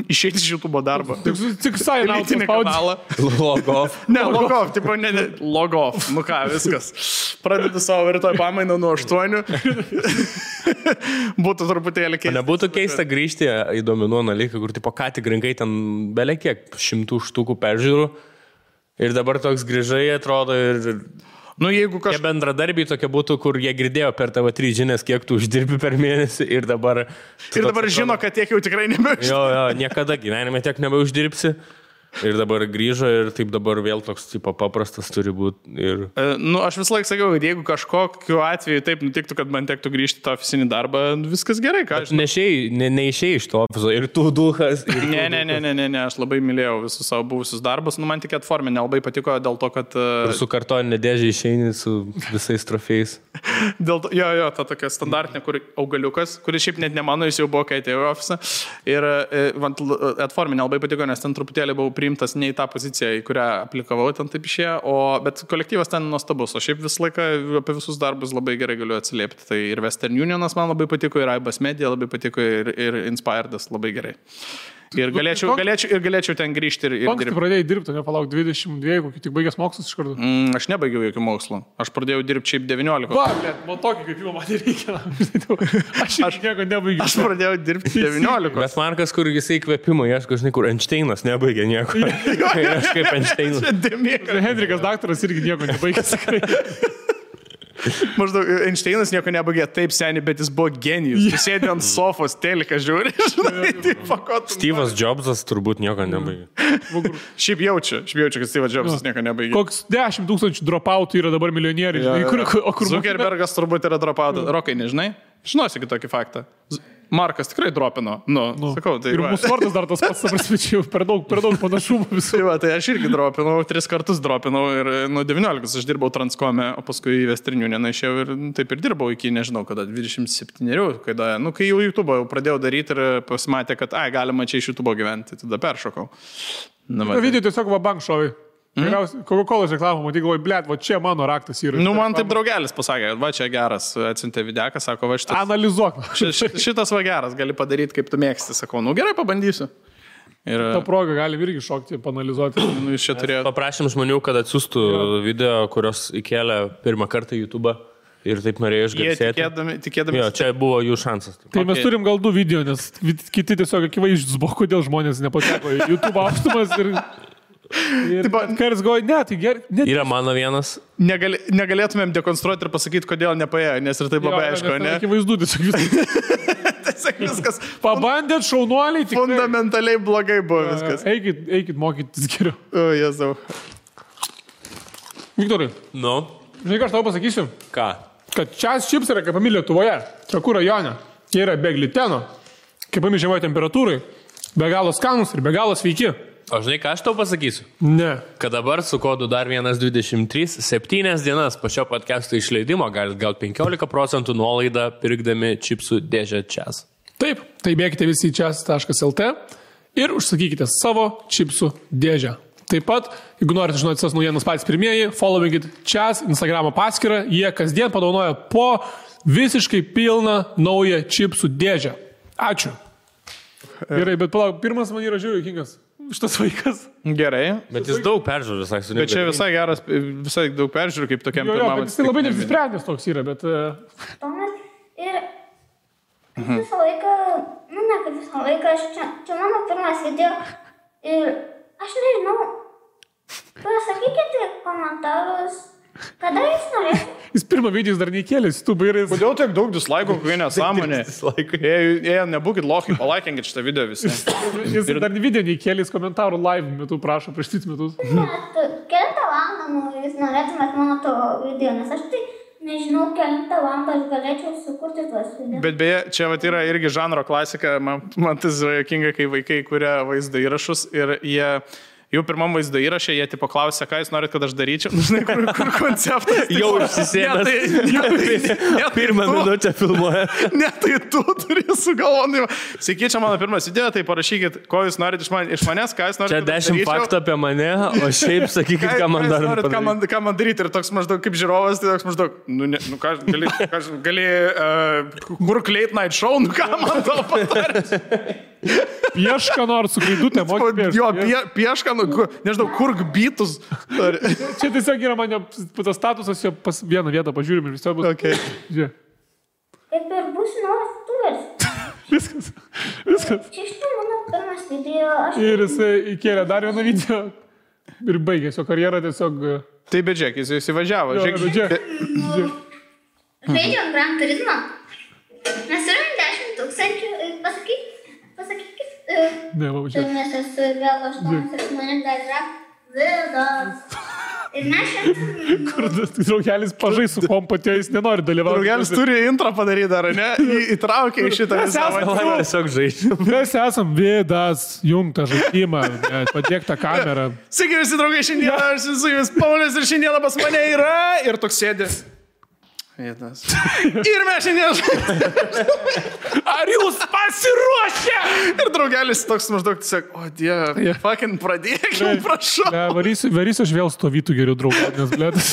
Išeiti iš YouTube darbo. Tik elitinį kanalą. Log off. Ne, log off, tipo, log off. Nu ką, viskas. Pradedu savo rytoj pamainą nuo 8. Būtų truputėlį keista. Nebūtų keista grįžti į duomenų analitiką, kur tipo ką tik rinkai ten belekiek 100 štukų peržiūrų ir dabar toks grįžai atrodo ir... Jeigu Tie bendradarbiai tokie būtų, kur jie girdėjo per TV3 žinias, kiek tu uždirbi per mėnesį ir dabar... Ir dabar žino, kad tiek jau tikrai nebeuždirbsi. Jo, niekada gyvenime tiek nebeuždirbsi. Ir dabar grįžo ir taip dabar vėl toks tipo paprastas turi būti. Ir... Aš visą laiką sakiau, kad jeigu kažkokiu atveju taip nutiktų, kad man tektų grįžti į tą ofisinį darbą, viskas gerai. Neišėjai iš to ofiso ir tu duhas. Ne, aš labai mylėjau visus savo buvusius darbus. Man tik atformė nelabai patiko dėl to, kad... Ir su kartoninė dėžė išeini su visais trofėjais. Jo, ta tokia standartinė, kur augaliukas, kuris šiaip net ne mano, jis jau buvo, kai atėjau į ofisą. Ir atformė nelabai patiko, nes ten truputėlį buvau priimtas ne į tą poziciją, į kurią aplikavau, ten taip išėjo, bet kolektyvas ten nuostabus, o šiaip visą laiką apie visus darbus labai gerai galiu atsiliepti. Tai ir Western Unionas man labai patiko, ir Aibas Media labai patiko, ir Inspiredas labai gerai. Ir galėčiau ten grįžti ir dirbti. Kai pradėjai dirbti, nepalauk 22, kokį tik baigęs mokslus iš karto? Aš nebaigiau jokių mokslų. Aš pradėjau dirbti šiaip 19. Va, bet man tokį, kaip jau man reikia. Aš nieko nebaigiau. Aš pradėjau dirbti 19. Bet Markas, kur jisai įkvėpimo, ieško, žinai, kur Einšteinas nebaigė nieko. Aš kaip Einšteinas. Henrikas daktaras irgi nieko nebaigęs. Maždaug Einšteinas nieko nebaigė taip seniai, bet jis buvo genijus. Jis sėdė ant sofos, teliką žiūri. Steve'as Jobsas turbūt nieko nebaigė. Šiaip jaučiu, kad Steve'as Jobsas nieko nebaigė. Koks 10 000 dropoutų yra dabar milijonieriai. Zuckerbergas turbūt yra dropoutų. Rokai, nežinai? Žinosi kitokį faktą. Markas tikrai dropino. Sakau, tai ir mūsų vardas dar tas pats, prasmečiau, per daug panašumų visų. Tai aš irgi dropinau, 3 kartus dropinau ir nuo 19 aš dirbau Transcome, o paskui į Western Unioną išėjau ir taip ir dirbau iki, nežinau, kada 27, kai jau YouTube pradėjau daryti ir pasimatė, kad galima čia iš YouTube gyventi, tada peršokau. Video tiesiog va bank šovai. Coca-Cola reklamą, matai, galvoju, blėt, va čia mano raktas yra. Man taip draugelis pasakė, va čia geras, atsiuntė videką, sako, va šitas. Analizuok. Šitas va geras, gali padaryti, kaip tu mėgsti, sakau, gerai, pabandysiu. Ir tą progą galim irgi šokti, panalizuoti. Paprašym žmonių, kad atsiųstų video, kurios įkėlė pirmą kartą į YouTube ir taip norėjo išgarsėti. Tikėdami. Jo, čia buvo jų šansas. Tai mes turim gal 2 video, nes kiti tiesiog akivaizdžius buvo, kodėl žmonės nepateko į YouTube aukštumas ir karas galvoja, ne, tai gerai. Yra mano vienas. Negalėtumėm dekonstruoti ir pasakyti, kodėl nepaėjo, nes ir taip labai aišku, ne? Akivaizdu, tiesiog viskas. Pabandėt, šaunuoliai, tik fundamentaliai blogai buvo viskas. Eikit mokytis geriau. O, Jėzau. Viktorai. Nu. Žinai, ką aš tau pasakysiu? Ką? Kad čias čips yra kepami Lietuvoje, Trakų rajone. Jie yra be gliteno, kepami žemai temperatūrai, be galo skanus ir be galo sveiki. O žinai, ką aš tau pasakysiu? Ne. Kad dabar su kodu dar 123, 7 dienas po šio podcast'o išleidimo galite gauti 15% nuolaidą pirkdami čipsų dėžę čias. Taip, tai bėkite visi į čias.lt ir užsakykite savo čipsų dėžę. Taip pat, jeigu norite žinoti visas naujienas patys pirmieji, followingit čias Instagramo paskyrą, jie kasdien padovanoja po visiškai pilną naują čipsų dėžę. Ačiū. Gerai, bet palauk, pirmas man yra žiūrėjau juokingas. Šitas vaikas. Gerai. Bet jis daug peržiūrų, sakė. Bet čia visai geras, visai daug peržiūrų, kaip tokiam pirmam. Bet jis labai neapsisprendęs toks yra, bet... Tomas ir visą laiką, ne kaip visą laiką, čia mano pirmas video ir aš nežinau, pasakykite komentarus, kada jūs norėsite. Jis pirmą video dar neįkėlės, tu bairis. Kodėl tiek daug dislaikų, kokie nesąmonė? Jei nebūkit lochai, palaikinkit šitą video visi. Jis dar video neįkėlės komentarų live metu, prašo, prieš 3 metus. Kelintą valandą jūs norėtumėt mano to video, nes aš tai nežinau, kelintą valandą aš galėčiau sukurti tuos video. Bet beje, čia vat yra irgi žanro klasika, man tas yra jokinga, kai vaikai kuria vaizdo įrašus ir jie... Jau pirmam vaizdo įrašė, jie tipo klausė, ką jūs norit, kad aš daryčiau. Žinai, kur konceptas. Jau užsisėmęs. Pirmą minutę filmuoja. Ne, tai tu turi sugalvoti. Sveiki, čia mano pirmas video, tai parašykit, ko jūs norit iš manęs, ką jūs norit. Čia 10 faktų apie mane, o šiaip sakykit, ką man dar padaryti. Ką man daryti. Ir toks maždaug kaip žiūrovas, tai toks maždaug, ką gali, kur Late Night Show, ką man tau patarti. Piešką nors su klaidutė, mokyk. Jo, piešką, nežinau, kurk bytus. Čia tiesiog yra mane tas statusas, jo pas vieną vietą pažiūrim ir visą bus. Okay. Žiūrėk. Kaip ir bus naujas tuvers. Viskas. Čia štai mano pirmas video. Ir jisai įkėlė dar vieną video ir baigė jo karjerą tiesiog. Tai bet žiūrėk, jis įsivažiavo. Žaidžiam Gran Turismo. Mes turim 10 000, pasakykit. Ne, va, čia. Mes esu vėl 8 ir manim dar yra vidas. Ir mes šiandien... Kur draugelis pažais su kompatė, jis nenori dalyvauti. Draugelis turi intro padaryti dar, ne? Įtraukia į šitą visą. Tiesiog žaidžiu. Mes esam vidas, jungtą žaidimą, padėktą kamerą. Sveiki visi draugai, šiandieną aš su jumis Paulius ir šiandieną pas mane yra ir toks sėdės. Vietas. Ir mes šiandien... Ar jūs pasiruošę? Ir draugelis toks maždaug tiesiog, o dieve, fucking pradėkim, prašau. Varysiu aš vėl stovytų geriau draugą, nes blėtas.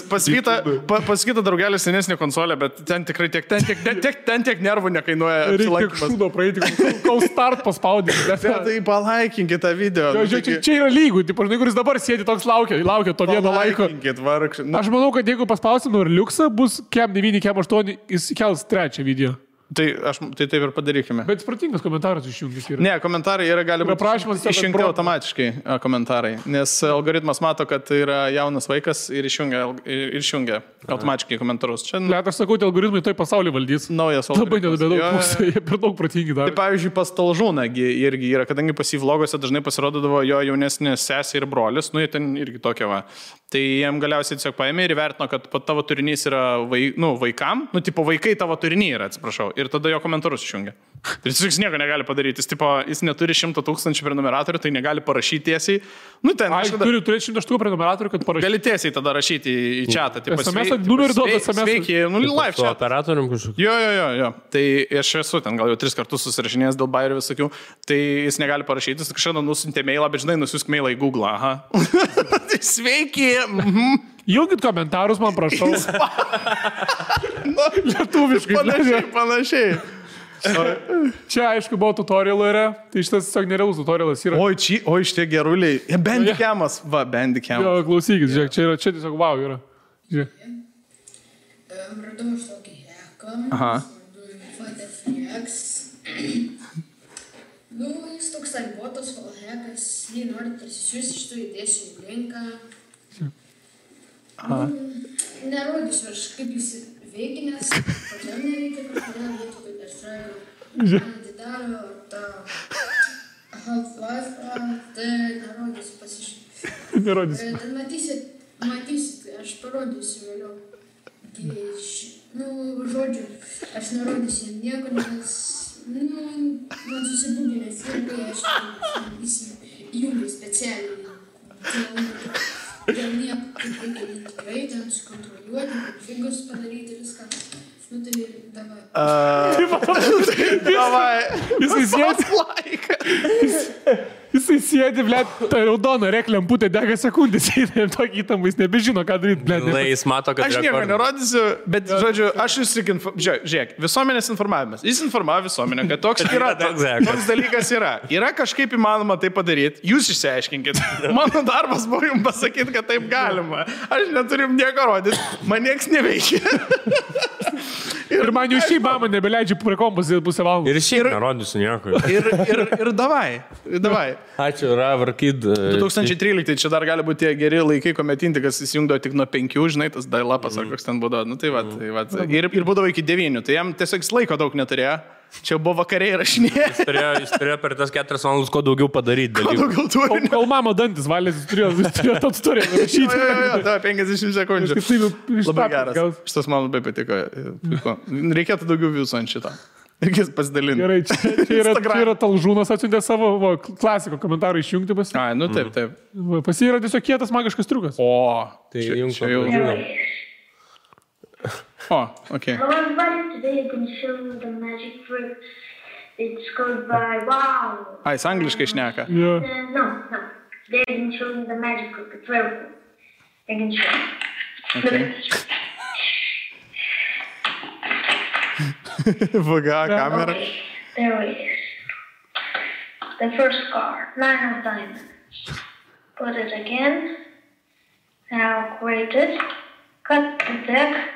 Paskyta draugelis senesnė konsolė, bet ten tikrai tiek nervų nekainuoja. Reikia šūdo praeiti, kol start paspaudyti. Tai palaikinkit tą video. Čia yra lygų, kuris dabar sėdi toks laukia to vieno laiko. Aš manau, kad jeigu paspausim ir liuksą, bus kem 9, kem 8, jis kels 3 video. Tai taip ir padarykime. Bet spratingas komentaras išjungęs yra. Ne, komentarai gali būti išjungti automatiškai komentarai, nes algoritmas mato, kad tai yra jaunas vaikas ir išjungia automatiškai komentarus. Čia... Let, aš sakau, algoritmai tai pasaulį valdys. Naujas algoritmas. Labai nedaug pusė, jie per daug protingi dar. Tai pavyzdžiui, pas Talžūną irgi yra, kadangi pas jį vloguose dažnai pasirodydavo jo jaunesnė sesė ir brolis, jie ten irgi tokia va. Tai jiem galiausiai tiesiog paėmė ir vertino, kad tavo turinys yra vaikam, vaikai tavo turinį yra, atsiprašau, ir tada jo komentarus išjungia. Tai jis nieko negali padaryti, jis neturi 100 000 prenumeratorių, tai negali parašyti tiesiai. Turi turėti 100 000 prenumeratorių, kad parašyti. Gali tiesiai tada rašyti į chatą. SMS numerį duoda SMS. Sveiki, live chat. Operatorium kažkokiu. Jo. Tai aš esu ten gal jau 3 kartus susirašinėjęs dėl bairių visokių, tai jis negali parašyti, jis kažkada nusintė mailą, bet žinai, nusiusk mailą į Google. Aha. Sveiki. Jungit komentarus, man prašau. Lietuviškai. Panašiai. Čia, aišku, buvo tutorialų yra, tai šitas tiesiog nerealus tutorialas yra. Oi, šitie geruliai. Bandicam. Va, Bandicam. Jo, klausykit, žiūrėk, čia tiesiog wow yra. Žiūrėk. Radau aš tokį heką. Aha. Fateflex. Jis toks botas, hekas, jį nori parsisiųsti, iš to įdėsiu į linką. Nerodysiu aš, kaip jis veikia, nes pačiam nereikia, kažkodėl vietų kaip Airstrike. Atidaro tą Half-Life, tai nerodysiu pasižiūrėti. Nerodysiu. Ten matysit, aš parodysiu vėliau. Žodžiu, aš nerodysiu nieko, nes, man susibūginęs irgi, aš įjungiu specialiai. Dėl nieko, kaip reikia tikrai ten sukontroliuoti, figus padaryti viską. Tai davai. Jisai sėdi, blėt, ta raudona reklemputė dega sekundės, ir tokį įtampą jis nebežino, ką daryti, blėt. Jis mato, kad aš nieko nerodysiu, bet, žodžiu, aš jūs tik žiūrėk, visuomenės informavimas. Jis informavo visuomenę, kad toks yra, toks dalykas yra. Yra kažkaip įmanoma tai padaryti, jūs išsiaiškinkit. Mano darbas buvo jums pasakyti, kad taip galima. Aš neturim nieko rodyti, man nieks neveikia. Ir man jau šį mamą nebeleidžia prie kompos pusę valandą. Ir šiaip nerodysiu nieko. Ir davai. Ačiū, Ravarkid. 2013, čia dar gali būti tie geri laikai, kuomet Intikas įsijungdavo tik nuo 5, žinai, tas dial-upas ar koks ten būdavo. Nu tai va. Ir būdavo iki 9, tai jam tiesiog laiko daug neturėjo. Čia buvo vakariai rašinėje. Jis turėjo per tas 4 valandas ko daugiau padaryti. Kol mama dantis valės, jis turėjo tą tutoriją rašyti. Jo, 50 sekundžių. Labai geras. Šitas man labai patiko. Reikėtų daugiau visų ant šitą. Reikės pasidalinti. Gerai, čia yra Talžūnas atsiuntė savo klasiko komentarą išjungti pas. Ai, nu taip. Pas jį yra tiesiog kietas magiškas triukas. O, tai jums jau žinau. Oh, okay. Hello everybody, today I'm going to show you the magic trick. It's called by wow. Jis angliškai šneka. Yeah. No. Today I'm going to show you the magic trick. It's very cool. I can show you. Okay. Vaga, kamera. Okay, there it is. The first card, 9 of diamonds. Put it again. Now create it. Cut the deck.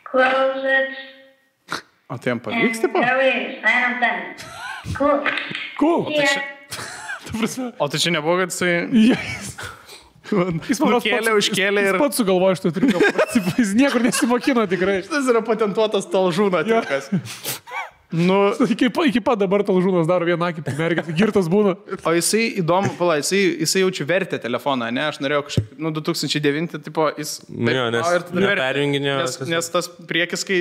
Close it. O tai jam pavyks, tipo? There it is, 9 of diamonds. Cool. Yeah. O tai čia nebuvo, kad jisai... Jis užkėlė ir... Jis pats sugalvojo šitą triuką. Jis niekur nesimokino tikrai. Šitas yra patentuotas Talžūno triukas. Nu, iki pat dabar Talžūnas daro vieną akį, mergės, girtas būna. O jisai įdomu, jisai jaučiu vertę telefoną, ne? Aš norėjau kažkaip, 2009, tipo, jis... Neperjunginėjo. Nes tas priekis, kai,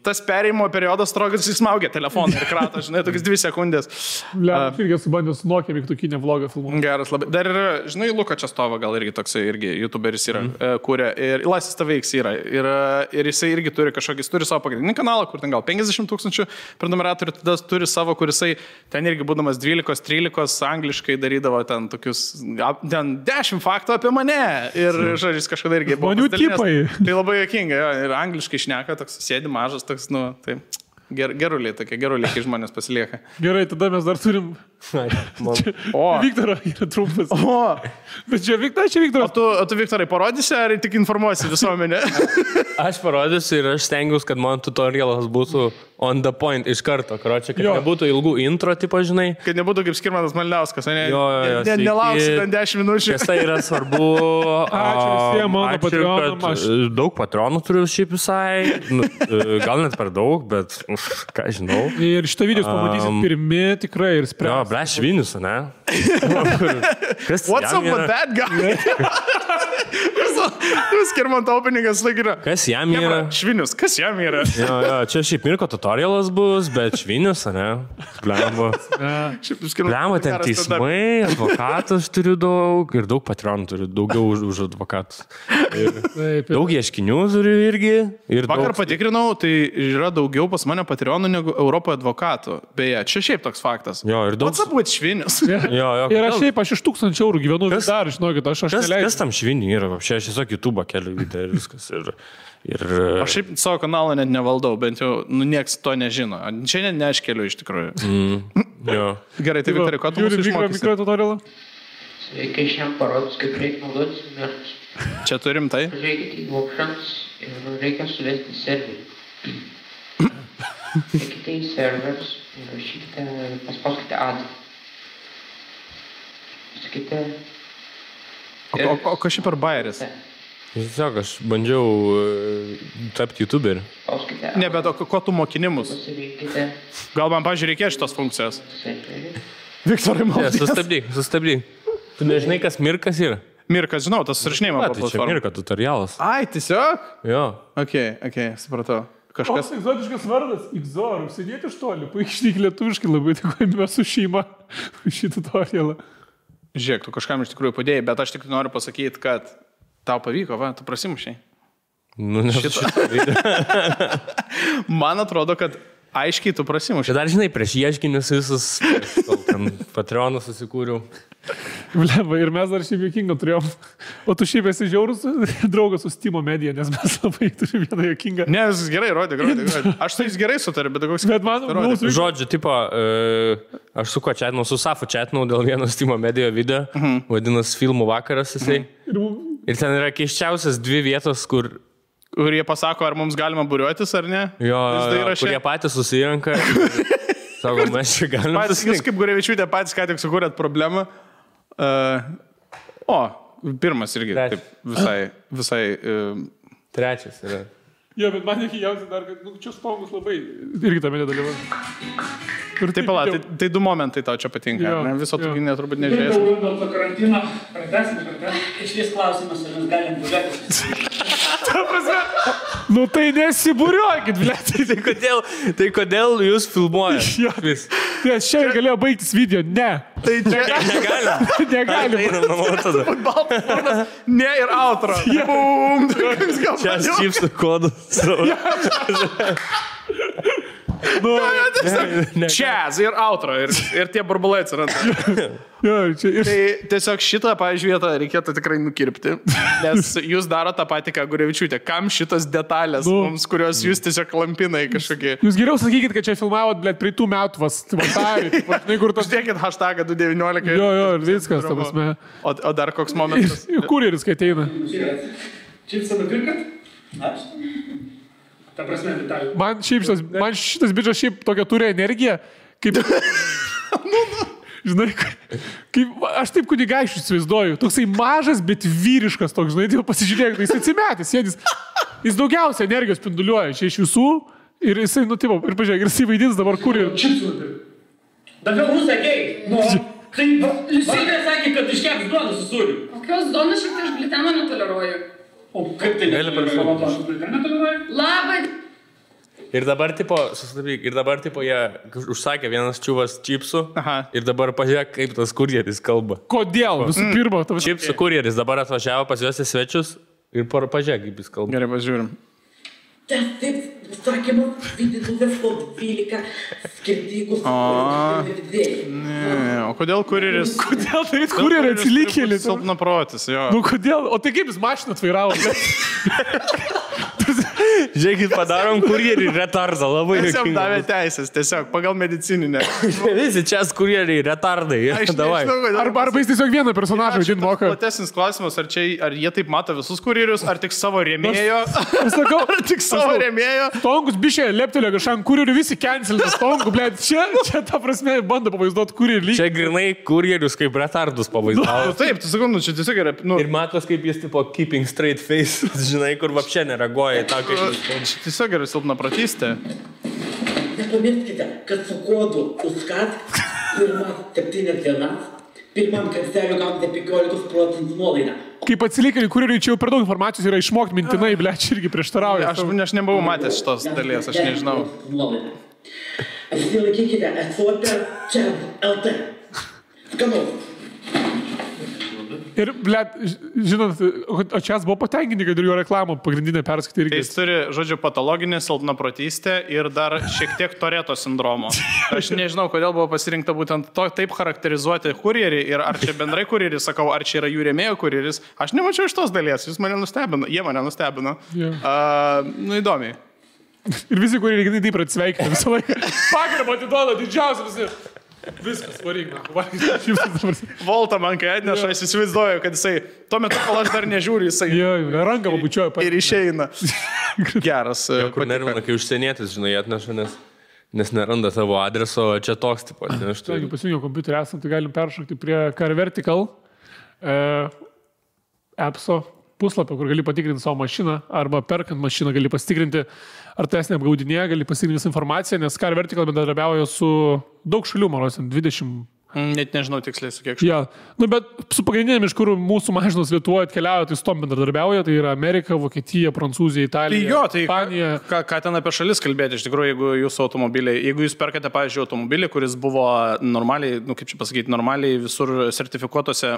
tas perėjimo periodas trogas, jis smaugia telefoną ir kratą, žinai, tokias 2 sekundės. Aš irgi subandžiau su Nokia mygtukinę vlogą filmuoti. Geras labai. Dar yra, žinai, Luka Čestova gal irgi toksai, irgi youtuberis yra, kūrė, ir Lasis Taveiks yra. Ir jisai irgi turi kažkokį, turi savo pagrindinį kanalą, kur ten gal 50 000 prenumeratorių, tada turi savo, kur jisai ten irgi būdamas 12-13 angliškai darydavo ten tokius, ten 10 faktų apie mane. Ir žodžiais kažkada irgi buvo. Žmonių tipai. Tai labai juokinga, jo, ir angliškai šneka, toks sėdi mažas, toks, tai geruliai, tokie geruliai, kai žmonės pasilieka. Gerai, tada mes dar turim... Viktoro yra trumpas. Bet čia Viktoras. O tu Viktorai parodysi, ar tik informuosi visuomenę? Aš parodysiu ir aš stengiuosi, kad mano tutorialas būtų on the point iš karto. Karočią, kad nebūtų ilgų intro, tipo, žinai. Kad nebūtų kaip Skirmantas Malinauskas, ne? Jo, nelauksi ten 10 minučių. Kas tai yra svarbu. Ačiū visiems mano patronams. Daug patronų turiu šiaip visai. Gal net per daug, bet ką žinau. Ir šitą video pamatysit pirmi tikrai ir spręs. Jo, ble, Švinius, ne? What's up with that guy? Skirmanto openingas laikina. Kas jam yra? Švinius, kas jam yra? Jo, čia šiaip Mirko tutorialas bus, bet Švinius, ne? Blemba. Blemba, ten teismai, advokatas turiu daug ir daug patronų turiu, daugiau už advokatus. Daug ieškinių turiu irgi. Vakar patikrinau, tai yra daugiau pas mane patronų negu Europoje advokatų. Beje, čia šiaip toks faktas. Jo, ir daug. What's up with Švinius? Ir aš šiaip, aš iš 1000 eurų gyvenu vis dar, žinokit, aš neleidžiu. Kas tam Šviniui yra? Aš tiesiog YouTube keliu video ir viskas. Aš šiaip savo kanalą net nevaldau, bent jau, nieks to nežino. Čia net ne aš keliu iš tikrųjų. Jo. Gerai, tai Viktorai, ko tu mūsų išmokysi? Mikrotutorialą? reikia šiam parodus, kaip reikia naudotis mirus. Čia turim tai? Žiūrėkite į options ir reikia suvesti serverį. Eikite į servers ir rašykite, paspauskite add. Sakykite... O kas čia per bayeris? Tiesiog, aš bandžiau tapti YouTuberį. Ne, bet ko tu mokinimus? Pasirinkite Gal man, pažiūrėjau, reikės šitos funkcijos? serverį. Viktorai, Ne, sustabdyk. Tu nežinai, kas Mirkas yra? Mirkas, žinau, tas surašinėjimo Tai čia platforma. Mirka tutorialas. Ai, tiesiog? Jo. Ok, supratau. Kažkas... Koks egzotiškas vardas? Igzor, užsidėti iš toli, puikiai lietuviškai labai dėkojame su šeima šį tutorialą. Žiūrėk, tu kažkam iš tikrųjų padėjai, bet aš tik noriu pasakyti, kad tau pavyko, va, tu prasimušiai. Nu, ne šitą. Man atrodo, kad aiškiai tu prasimušiai. Čia dar, žinai, prieš ieškinius visus Patreonus susikūriau. Bleba, ir mes dar šiaip jokingą turėjom. O tu šiaip esi žiaurus draugas su Steam Media, nes mes labai turime vieną jokingą. Ne, viskas gerai, rodė. Aš su jais gerai sutariu, bet koks... Bet man mūsų... Žodžiu, tipo, aš su kuo čatinau, su Safu čatinau dėl vieno Steam Media video, vadinasi Filmų vakaras jisai. Ir ten yra keiščiausias 2 vietos, kur jie pasako, ar mums galima būriuotis, ar ne? jo, kurie patys susirenka. Sako, mes čia galime. Jūs kaip Gurevičiūtė patys ką tik sukūrėt problemą. Pirmas irgi taip, visai... Trečias yra. Jo, bet man nekiausia dar, kad čia spongus labai irgi tame nedalyvau. Taip, tai 2 momentai tau čia patinka. Ne? Viso tokį neturbūt nežiūrės. Dėl to karantino pratęsime. Išvis klausimas, ar mes galim būrėtis. Nu tai nesibūriuokit, blėt. Tai kodėl jūs filmuojate? Vis. Nes čia galėjo baigtis video. Ne. Tai čia Negalim. Einam namo tada. ne ir outro. Bum! Čia aš čipsų kodus. Čiaz ir outro. Ir tie burbulai atsiranda. Tai tiesiog šitą, pavyzdžiui, vietą reikėtų tikrai nukirpti, nes jūs daro tą patį, ką Gurevičiūtė. Kam šitas detalės mums, kurios jūs tiesiog lampinai kažkokie? Jūs geriau sakykit, kad čia filmavot, blėt, prie tų metų vasarį. Uždėkit hashtagą 2019. Jo, viskas, ta prasme. O dar koks momentas? Kurjeris, kai ateina. Čipsą nupirkat? Aš? Ta prasme, Vitalijų. Man šitas bičas šiaip tokia turi energiją, kaip... Žinai, kaip aš taip kunigaičių įsivaizduoju. Toksai mažas, bet vyriškas toks, žinai, jau pasižiūrėk, jis atsimetęs, jis daugiausia energijos spinduliuoja čia iš visų ir jisai, tipo, ir pažiūrėk, ir jisai vaidins dabar kur ir... Čipsų nupirkat. Dabar mūsų sakei, tai Liusinė sakė, kad iškeps duoną su sūriu. Kokios duonos šiek tiek aš gliteno netoleruoju. O kaip tai netoleruoju? Labai. Ir dabar, tipo, jie užsakė vienas čiuvas čipsų. Ir dabar pažiūrėk, kaip tas kurjeris kalba. Kodėl? Visų pirma, Čipsų kurjeris dabar atvažiavo pas juos į svečius ir pažiūrėk, kaip jis kalba. Gerai, pažiūrim. Taip, sakymas, vidinuvės po 12 skirtingų O kodėl kurjeris? Kodėl daryt kurjerį atsilikėlį? Silpna protis, jo. Nu kodėl? O tai kaip jis mašiną atvairavo? Žiūrėkit, padarom kurjerį retardą, labai Jis jam juokinga. davė teisės, tiesiog pagal medicininę. Visi čia kurieriai retardai. Davai. Arba jis tiesiog vieną personažą vaidint moka. Platesnis klausimas, ar jie taip mato visus kurjerius, ar tik savo rėmėjo? Sakau, Ar tik savo rėmėjo? Stongus bišė leptelė kažkam kurjerių, visi cancelina Stongų, blėt. Čia ta prasme bando pavaizduoti kurjerį. Čia grinai kurjerius kaip retardus pavaizdavo. Taip, tu sakau, čia tiesiog yra... Ir matos, kaip jis tipo keeping straight face, žinai, kur vapšė nereaguoja į tą, kaip jis kalba. Čia tiesiog yra silpna pratystė. Nepamirškite, kad su kodu USCAT pirmas 7 dienas, pirmam karseliu gaunate 15% nuolaidą. Kaip atsilikėlį kurjeriui, čia jau per daug informacijos yra išmokti mintinai, blėt, čia irgi prieštarauja. Aš nebuvau matęs šitos dalies, aš nežinau. Apsilaikykite esuote čia LT. Skanaus. Ir, blėt, žinot, o čia buvo patenkinti, kad ir jo reklamą pagrindinę perskaitė irgi. Jis turi, žodžiu, patologinį silpnaprotystę ir dar šiek tiek Toreto sindromo. Aš nežinau, kodėl buvo pasirinkta būtent taip charakterizuoti kurjerį ir ar čia bendrai kurjerį, sakau, ar čia yra jų rėmėjo kurjeris. Aš nemačiau iš tos dalies, jie mane nustebino. Įdomiai. Ir visi kurjeriai taip atsveikina visą laiką. Pagarbą atiduoda didžiausia visi. Viskas, varyk, Volta man kai atneša, aš įsivaizduoju, kad jisai, tuo metu, kol aš dar nežiūriu, jisai ranką pabučioja ir išeina. Geras. Kur nervina, kai užsienietis, žinai, atneša, nes neranda tavo adreso, čia toks tipo. Jeigu pasijungiau kompiuterį esam, tai galim peršokti prie Car Vertical appso puslapio, kur gali patikrinti savo mašiną, arba perkant mašiną gali pasitikrinti, ar tai esi neapgaudinėja, gali pasitikrinti visą informaciją, nes Car Vertical bendradarbiauja su daug šalių, man rodos, 20. Net nežinau tiksliai su kiek šalių. Bet su pagrindinėm, iš kur mūsų mašinos Lietuvoje atkeliauja, tai su tom bendradarbiauja, tai yra Amerika, Vokietija, Prancūzija, Italija, Ispanija. Ką ten apie šalis kalbėti, iš tikrųjų, jeigu jūsų automobiliai, jeigu jūs perkate, pavyzdžiui, automobilį, kuris buvo normaliai, kaip čia pasakyti, normaliai visur sertifikuotose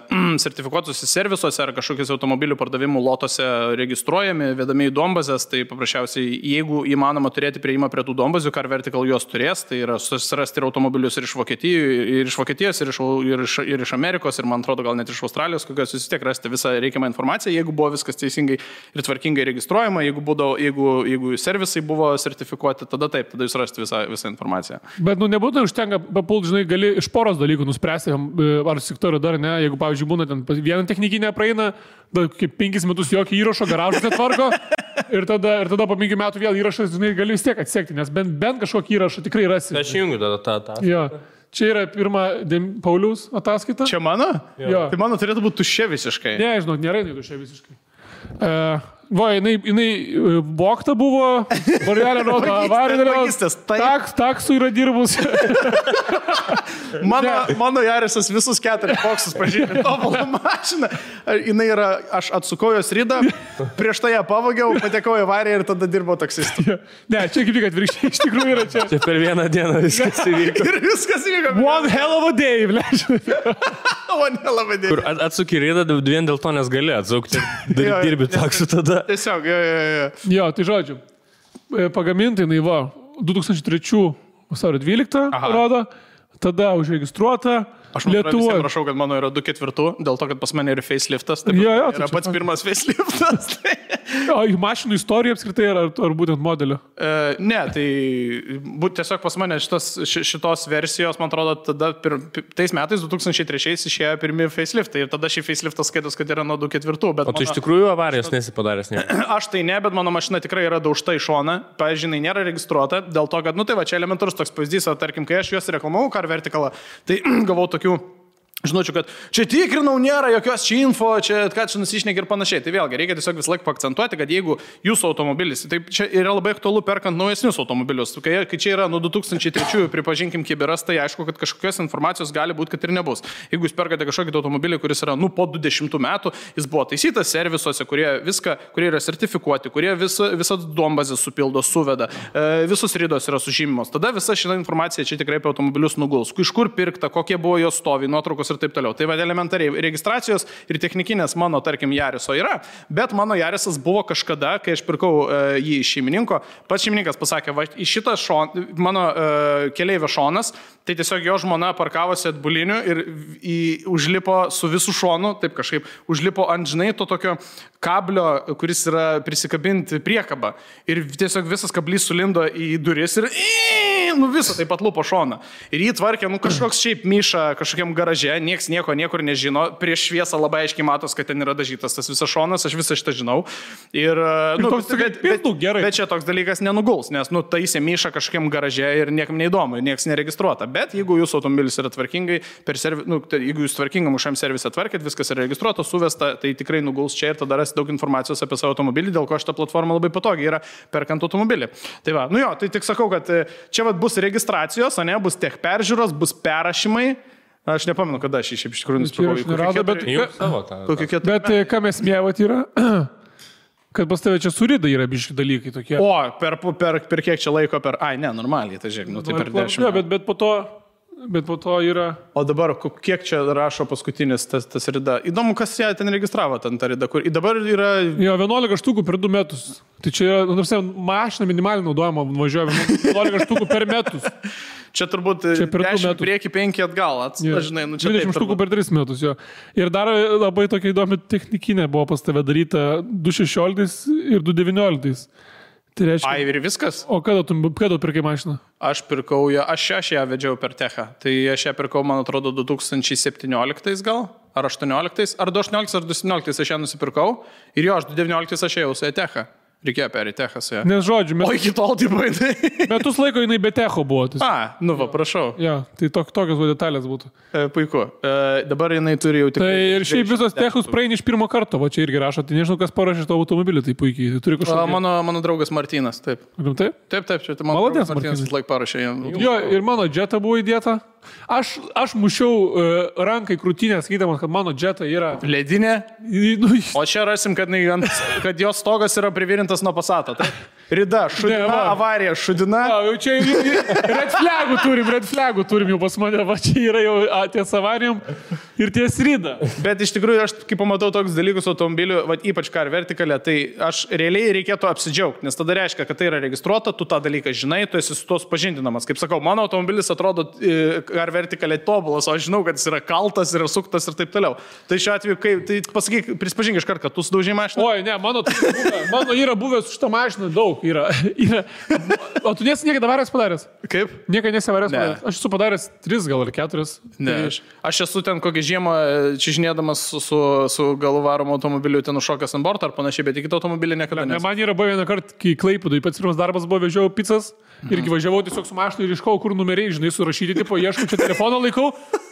servisuose ar kažkokius automobilių pardavimų lotose registruojami, vedami į duombazes, tai paprasčiausiai, jeigu įmanoma turėti prieimą prie tų duombazių, Car Vertical juos turės, tai yra susirasti ir automobilius ir iš Vokietijos, ir iš Amerikos, ir man atrodo gal net iš Australijos, kokios jūs vis tiek rasite visą reikiamą informaciją, jeigu buvo viskas teisingai ir tvarkingai registruojama, jeigu servisai buvo sertifikuoti, tada taip, tada jūs rasite visą informaciją. Bet nebūtų užtenka papult, žinai, gali iš poros dalykų nuspręsti, ar sektorių dar ne, jeigu, pavyzdžiui, būna ten vieną technikinę praeina, kaip 5 metus jokio įrašo, garažus netvarko, ir tada po 5 metų vėl įrašas, žinai, gali vis tiek atsekti, nes bent kažkokį įrašą tikrai rasi. Aš jungiu tada tą. Čia yra pirma Pauliaus ataskaita. Čia mano? Jo. Tai mano turėtų būti tuščia visiškai. Ne, žinau, nėra tuščia visiškai. Jinai vogta buvo, varjelė rodo, avarinė, taksų yra dirbus. Mano Jarisas visus 4 boksus pažymė, tobulą mašiną. Jinai yra, aš atsukau jos ridą, prieš tai ją pavogiau, patekau į avariją ir tada dirbau taksistu. Ne, čia kaip tik atvirkščiai, iš tikrųjų yra čia. Čia per vieną dieną viskas įvyko. Ir viskas įvyko. One hell of a day, One hell of a day. Kur atsuki ridą vien dėl to, nes gali atsukti, dirbi taksų tada. Tiesiog, Jo, tai žodžiu, pagaminta jinai 2003 vasario 12 rodo, tada užregistruota. Aš prašau, kad mano yra 2/4, dėl to, kad pas mane yra faceliftas. Tai yra pats pirmas faceliftas. O mašinų istorija apskritai ar būtent modelio? Ne, tai tiesiog pas mane šitos versijos, man atrodo, tada tais metais 2003 išėjo pirmi faceliftai ir tada šį faceliftas skaitos, kad yra nuo 2/4. O tu iš tikrųjų avarijos nesipadaręs, ne? Aš tai ne, bet mano mašina tikrai yra daužta į šoną, pavyzdžiui, nėra registruota, dėl to, kad, tai va, čia elementarus toks pavyzdys, tarkim, kai aš juos reklamavau Car Verticalą, tai gavau tokių žinočiau, kad čia tikrinau, nėra jokios čia info, čia ką čia nusišneki ir panašiai. Tai vėlgi, reikia tiesiog vis laik paakcentuoti, kad jeigu jūsų automobilis, tai čia yra labai aktualu perkant naujesnius automobilius. Kai čia yra nuo 2003, pripažinkim, kiberas, tai aišku, kad kažkokios informacijos gali būti, kad ir nebus. Jeigu jūs perkate kažkokį automobilį, kuris yra, po 20 metų, jis buvo taisytas servisuose, kurie yra sertifikuoti, kurie visą duombazę supildo, suveda, visos ridos yra sužymimos. Tada visa šita informacija čia tikrai apie automobilius nuguls. Iš kur pirkta, kokie buvo jos stovi, nuotraukos ir taip toliau. Tai va, elementariai registracijos ir technikinės mano, tarkim, Jariso yra, bet mano Jarisas buvo kažkada, kai aš pirkau jį iš šeimininko, pats šeimininkas pasakė, va, į šitą mano keleivio šonas, tai tiesiog jo žmona parkavosi atbuliniu ir užlipo su visų šonu, taip kažkaip, užlipo ant, žinai, to tokio kablio, kuris yra prisikabinti priekabą. Ir tiesiog visas kablys sulindo į duris ir visą taip pat lupo šoną. Ir jį tvarkė, kažkoks šiaip myša kažkokiam garaže, nieks niekur nežino, prieš šviesą labai aiškiai matos, kad ten yra dažytas tas visas šonas, aš visą šitą žinau. Ir bet čia toks dalykas nenuguls, nes taisė myša kažkokiam garaže ir niekam neįdomu, nieks neregistruota. Bet jeigu jūsų automobilis yra tvarkingai, jeigu jūs tvarkingam šiam servise tvarkėt, viskas yra registruota, suvesta, tai tikrai nuguls čia ir tada rasti daug informacijos apie savo automobilį, dėl ko šita platforma labai patogi yra perkant automobilį. Tai va, tai tik sakau, kad čia bus registracijos, bus tech peržiūros, bus perrašymai. Aš nepamenu, kada aš iš tikrųjų nusipirkau. Bet ką mes mėvat yra, kad pas tave čia surida yra biški dalykai tokie. O, per kiek čia laiko, normaliai, tai žiūrėk, tai per 10. Bet po to yra... O dabar, kiek čia rašo paskutinis tas rida? Įdomu, kas ją ten registravo, ten ta rida, kur dabar yra... Jo, 11 štukų per 2 metus. Tai čia yra, mašina minimaliai naudojama, važiuoja 11 štukų per metus. Čia turbūt 10 prieki 5 atgal. Žinai, 20 štukų per 3 metus, jo. Ir dar labai tokia įdomi technikinė buvo pas tave daryta 2.16 ir 2.19. Tai reiškia. Ai, ir viskas. O kada pirkai mašiną? Aš ją vedžiau per Techą. Tai aš ją pirkau, man atrodo, 2017 gal, ar 18, ar 2018, ar 2017 aš ją nusipirkau. Ir jo, aš 2019 aš ėjau su Techą. Reikėjo perėti Techą su ją. Nes žodžiu, O iki tol tai baidai. metus laiko jinai be Techo buvo. Nu va, prašau. Ja, tai tokios detalės būtų. Puiku. Dabar jinai turi jau tik... Tai ir šiaip visos Techus praeini iš pirmo karto, va čia irgi rašo, tai nežinau, kas parašė to automobilį, tai puikiai. Tai turi kažkokį... Mano draugas Martynas, taip. Taip? Taip, čia tai mano draugas Martynas laik parašė jam. Jo, ir mano Jetta buvo įdėta. Aš mušiau rankai krūtinę, skaidamas, kad mano Jetta yra... Ledinė. Nu, O čia rasim, kad jos stogas yra privirintas nuo Passato. Rida, šudina, avarija, šudina. Jau čia red flagų turim jau pas mane, va čia yra jau ties avarijom ir ties Rida. Bet iš tikrųjų, aš kai pamatau toks dalykus automobilių, va, ypač Car Vertical, tai aš realiai reikėtų apsidžiaugti, nes tada reiškia, kad tai yra registruota, tu tą dalyką žinai, tu esi su to supažindinamas. Kaip sakau, mano automobilis atrodo Car Vertical tobulas, o aš žinau, kad jis yra kaltas, yra suktas ir taip toliau. Tai šiuo atveju, tai pasakyk, prispažink iš karto, kad tu sudaužai mašiną. Oi, ne, mano yra buvęs už tą mašiną daug. O tu nesi niekada avarijas padaręs? Kaip? Niekada nesi avarijas padaręs. Aš esu padaręs 3 gal ar 4. Ne, aš esu ten kokią žiemą čižinėdamas su galų varomu automobiliu ten užšokęs ant borto ar panašiai, bet į kitą automobilį niekada nesu. Man yra buvo vieną kartą, kai Klaipėdoj pats pirmas darbas buvo, vežiau pizzas irgi važiavau tiesiog su mašinu ir iškau, kur numeriai, žinai, surašyti, tipo, ieškau čia telefoną laikau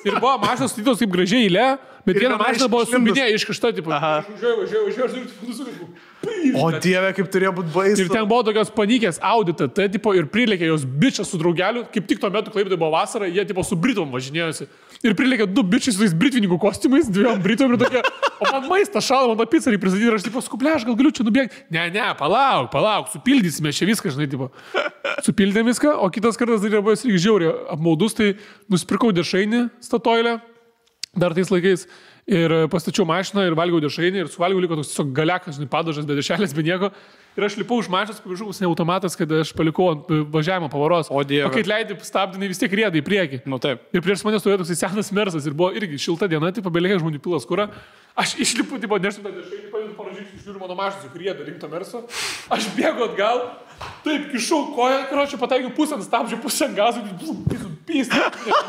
ir buvo mašinas statytos taip gražiai eilė, bet viena mašina buvo sumbinė iškišta, tipo, važiuoju. O Dieve, kaip turėjo būti baisu. Ir ten buvo tokios panikės audita, tai tipo ir prilėkė jos bičias su draugeliu, kaip tik tuo metu Klaipėdoj buvo vasara, jie tipo su Britom važinėjosi. Ir prilėkė 2 bičiai su tais britvininkų kostiumais, 2 Britom ir tokie, o man maistą šalą, man tą pizzą pristatyti ir aš tipo skuplė, aš gal galiu čia nubėgti. Ne, palauk, supildysime čia viską, žinai, tipo. Supildėm viską, o kitas kartas dar buvo irgi žiauriai apmaudus, tai nusipirkau dešrainį Statoilę dar tais laikais. Ir pastačiau mašiną ir valgiau dešrainį ir suvalgiau liko toks tiesiog galiakas, žinai, padažas, be dešrelės, be nieko. Ir aš lipau už mašinos, pavyzdžiui, ne automatas, kad aš palikau ant važiavimo pavaros. O Dieve. O kai leidai stabdinai, vis tiek rėdai į priekį. Nu taip. Ir prieš mane stovėjo toks senas Mersas ir buvo irgi šilta diena, tai pabelėkė žmonių pilas kurą. Aš išlipu, tipo, nežinau, tą dešrainį, padedu paražyti, žiūriu mano mašinos, kur rėda rimto Merso. Aš bėgu atgal, taip, kišau koją, karočią, pataikiau pusę ant stabdžio, pusę ant gazų,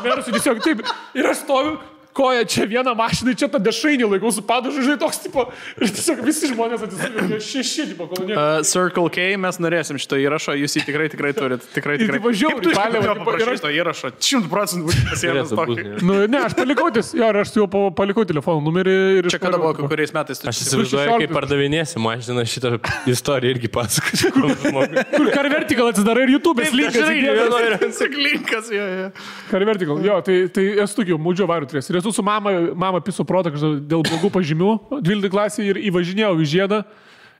Mersui tiesiog taip. Ir aš stoviu. Koja čia vieną mašiną, čia tą dešrainį laikau su padažu, žinai, toks tipo, ir tiesiog visi žmonės atsisuvė, 6, tipo, kolonė. Circle K, mes norėsim šito įrašo, jūs jį tikrai turit, tikrai. Ir tipo žiauriai, palėvą, paprašyto įrašo, 100% būtų pasiėmęs tokį. Nu, ne, aš palikau aš jau palikau telefono numerį ir... Čia kada buvo, kuriais metais tu... Aš įsivaizduoju, kaip pardavinėsi mašiną, šitą istoriją irgi pasakočiau. Kur Car Vertical atsidarai ir YouTube'as linkas. Car Vertical, jo, tai esu tokiu, mūdžio varių turės. Esu su mama piso protą dėl blogų pažymių 12 klasėje ir įvažinėjau į žiedą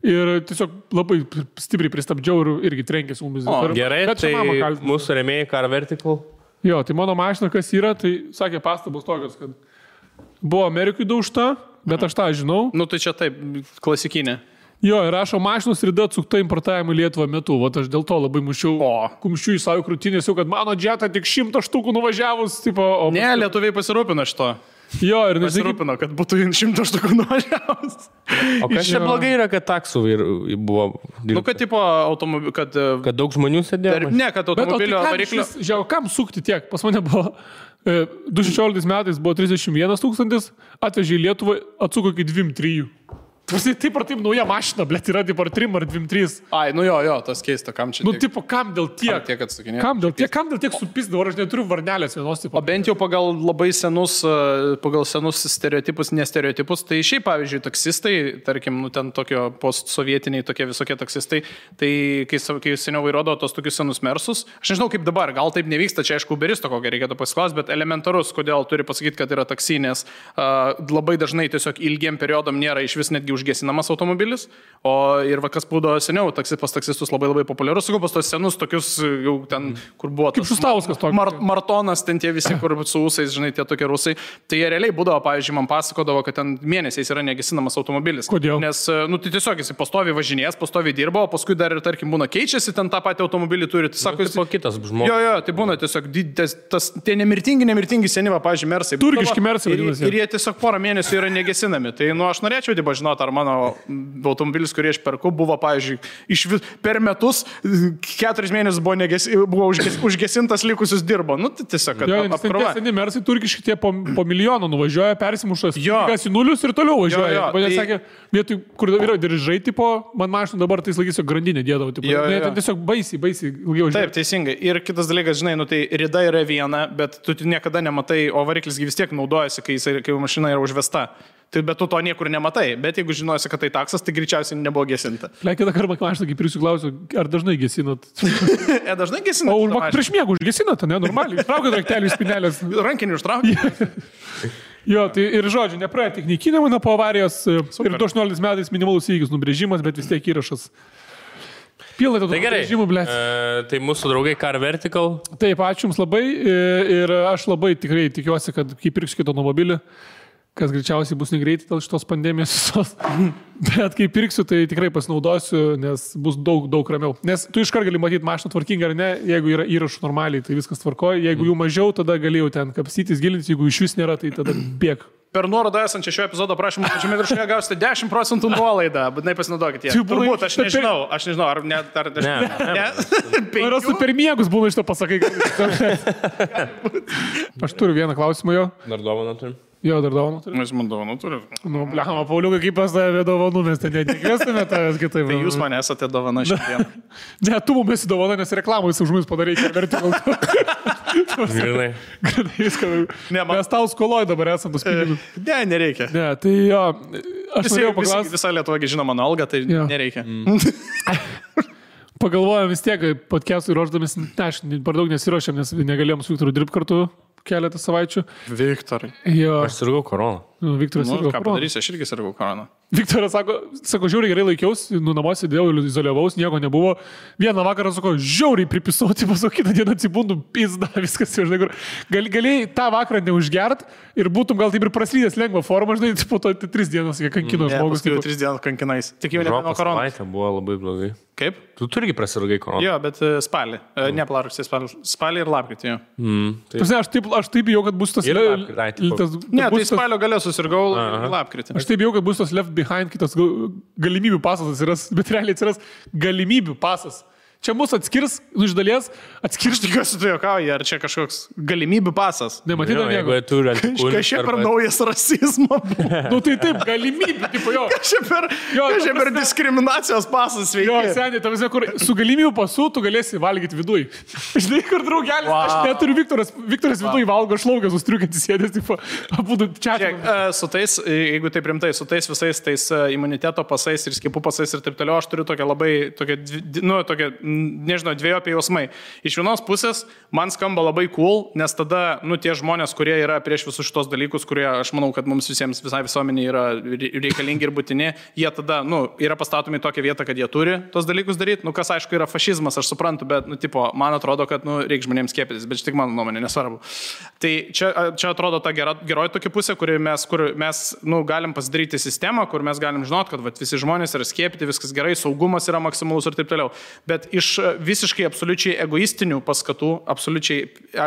ir tiesiog labai stipriai pristabdžiau ir irgi trenkėsi mumis. Gerai, tai mūsų rėmėjai Car Vertical. Jo, tai mano mašina kas yra, tai sakė pastabos tokios, kad buvo Amerikui daužta, bet aš tą žinau. Nu tai čia taip, klasikinė. Jo, ir rašo mašinos Rida atsukta importavimo į Lietuvą metu. Vat aš dėl to labai mušiau kumščių į savo krūtinės, kad mano Jetta tik 100 štukų nuvažiavus. Tipo, ne, lietuviai pasirūpino šito. Jo, ir pasirūpino, kad būtų 100 štukų nuvažiavus. O kas čia blogai yra, kad taksų buvo... Nu, kad tipo automobilių, kad daug žmonių sėdėjo? Ne, kad automobilio variklio... Žiūrėjau, kam sukti tiek? Pas mane buvo 2016 metais buvo 31 000, atvežė į Lietuvą, atsuko iki 2-3. Taip ar taip nauja mašina, blėt, yra taip ar 3 ar 2-3. Ai, nu jo, tas keista, kam čia tiek. Nu, tipo, kam dėl tiek? Kam dėl tiek supis, dabar aš neturiu varnelės vienos tipo. O bent jau pagal labai senus stereotipus, nestereotipus, tai šiaip, pavyzdžiui, taksistai, tarkim, nu, ten tokio postsovietiniai tokie visokie taksistai, tai kai seniau vairuodavo tos tokius senus Mersus, aš nežinau kaip dabar, gal taip nevyksta, čia aišku, Uberisto kokią reikėtų pasiklausyti, bet elementarus, kodėl turi pasakyti, kad yra taksinės, labai dažnai tiesiog ilgiem periodam nėra iš vis netgi užgesinamas automobilis, o ir kas būdavo seniau, pas taksistus labai populiarus, sakau, pas tos senus tokius jau ten, kur buvo kaip Šustauskas toks. Martonas, ten tie visi, kur su ūsais, žinai, tie tokie rusai, tai jie realiai būdavo, pavyzdžiui, man pasakodavo, kad ten mėnesiais yra negesinamas automobilis. Kodėl? Nes, nu, tai tiesiog jis pastoviai važinės, pastoviai dirba, o paskui dar ir, tarkim, būna keičiasi, ten tą patį automobilį turi. Tai sako, jis... kitas žmogus. Jo, tai būna tiesiog tie nemirtingi senyva, pavyzdžiui, Mersai. Turkiški Mersai. Ir jie tiesiog porą mėnesių yra negesinami. Tai, nu, aš norėčiau, žinoti ar mano automobilis, kurį aš perku, buvo, pavyzdžiui, per metus 4 mėnesius buvo užgesintas, likusius dirbo. Nu, tai tiesiog, kad apkrova. Seni mersai turkiški tie po milijono nuvažiuoja, persimušas, kas į nulius ir toliau važiuoja. Man sakė, vietoj, kur yra diržai, tipo, man mašina dabar tai laikysiu grandinę dėdavo. Ten tiesiog baisiai ilgiau važiuoja. Taip, teisingai. Ir kitas dalykas, žinai, nu, tai rida yra viena, bet tu niekada nematai, o variklis vis tiek naudojasi, kai mašina yra užvesta. Tai bet tu to niekur nematai, bet jeigu žinosi, kad tai taksas, tai greičiausiai nebuvo gesinta. Kitą kartą mašina, kaip ir jūsų klausiu, ar dažnai gesinat? Dažnai gesinat. O prieš miegų užgesinat, ne, normaliai. Traukit raktelį iš spinelės. Rankinį užtraukit. Jo, tai ir žodžiu, nepraėjo tik naikinimą po avarijos. Super. Ir 18 metais minimalus įvykis nubrėžimas, bet vis tiek įrašas. Pilnai to nubrėžimų, blėt. Tai mūsų draugai Car Vertical. Taip, ačiū Jums labai ir aš labai tikrai tikiuosi, kad kai pirksiu kitą automobilį, kas greičiausiai bus negreitai dėl šitos pandemijos visos. Bet kai pirksiu, tai tikrai pasinaudosiu, nes bus daug ramiau. Nes tu iškart gali matyti mašiną tvarkingą ar ne, jeigu yra įrašų normaliai, tai viskas tvarkoja. Jeigu jų mažiau, tada galėjau ten kapstytis, gilintis, jeigu iš vis nėra, tai tada bėg. Per nuorodą esančią šio epizodo prašymą, pačiame viršuje gausite 10% nuolaidą, būtinai pasinaudokite. Turbūt, aš nežinau, ar net, Ne. Ar su per miegus būna iš to pasakai. Aš turiu vieną klausimą jo. Dar dovaną turim? Jo, dar dovanų turiu. Mes man dovanų turim. Nu, blema, Pauliukai, kaip pas tavę dovanų, mes ten netikėsime tavęs kitaip. Tai jūs man esate dovana šiandien. Ne, tu mums esi dovana, nes reklamai už mus padarai, kad vertikal. Grinai. Viską. Mes tau skoloj dabar esam tos pinigus. Ne, nereikia. Ne, tai jo, aš norėjau paklausti. Visa Lietuva žino mano algą, tai nereikia. Pagalvojom vis tiek, podcast'ui ruošdamis, aš per daug nesiruošiam, nes negalėjom su Viktoru dirbti kartu keletą savaičių. Viktorai. Jo. Aš sirgau koroną. Viktoras sirgau koroną. Ką padarysi, aš irgi sirgau koroną. Viktoras sako, žiauriai gerai laikiausi, namuose dėjau, izoliavaus, nieko nebuvo. Vieną vakarą sako, žiauriai pripisauti, pasau, kitą dieną atsibundu, pizda, viskas jau, žinai, kur. Galėjai tą vakarą neužgert ir būtum gal taip ir praslydęs lengvą formą, žinai, po to 3 dienas, kai kankino žmogus. Jau 3 dienas kankinais. Tik jau nebeno koronos. Savaitė buvo labai blogai. Kaip? Tu turgi prasirgai koroną. Jo, bet spalį. Ne plarusį, spalį ir lapkritį, jo. Aš taip bijau, kad bus tas... Ne, tai spalio gale susirgau lapkritį. Aš taip bijau, kad bus tas left behind kitas galimybių pasas atsiras, bet realiai atsiras galimybių pasas. Čia mūsų atskirs, iš dalies atskirs. Tikiuosi, tu juokauji, ar čia kažkoks galimybių pasas? Nematydam nieko. Kažkaip per naujas rasizmo. Nu tai taip, galimybių, tipo jo. Kažkaip per diskriminacijos pasas veikia. Jo, seniai, tavasi, kur su galimybių pasu tu galėsi valgyti viduj. Žinai, kur draugelis, aš neturiu Viktoras viduj valgo šlaugę, sustriukantys sėdės, tipo, abudu čia. Su tais, jeigu tai primtai, su tais visais tais imuniteto pasais ir skiepų pasais ir taip toliau, aš turiu tokią labai, nežinau, dviejopi jausmai. Iš vienos pusės man skamba labai cool, nes tada, tie žmonės, kurie yra prieš visus šitos dalykus, kurie, aš manau, kad mums visiems, visai visuomeniai yra reikalingi ir būtini, jie tada, yra pastatomi į tokią vietą, kad jie turi tos dalykus daryti. Kas, aišku, yra fašizmas, aš suprantu, bet, man atrodo, kad, reikia žmonėms skiepytis, bet tik mano nuomonė, nesvarbu. Tai čia atrodo ta geroji tokia pusė, kur mes galim pasidaryti sistemą, kur mes galim žinot, kad visi žmonės yra skiepyti, viskas gerai, saugumas yra maksimalus ir taip toliau. Bet iš visiškai absoliučiai egoistinių paskatų, absoliučiai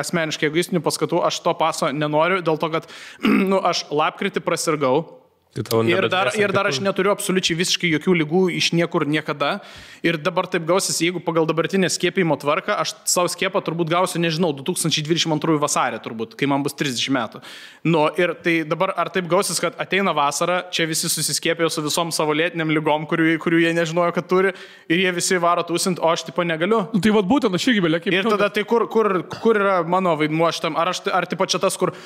asmeniškai egoistinių paskatų, aš to paso nenoriu, dėl to, kad aš lapkritį prasirgau. Ir dar aš neturiu absoliučiai visiškai jokių ligų iš niekur niekada. Ir dabar taip gausis, jeigu pagal dabartinę skiepimo tvarką, aš savo skiepą turbūt gausiu, nežinau, 2022 vasarį turbūt, kai man bus 30 metų. Ir tai dabar ar taip gausis, kad ateina vasara, čia visi susiskiepėjo su visom savo lėtiniam ligom, kurių jie nežinojo, kad turi, ir jie visi varo tūsint, o aš tipo negaliu. Tai vad būtent aš irgi belėkiai. Ir tada tai kur yra mano vaidmuo šitam, ar tipo čia tas, kur,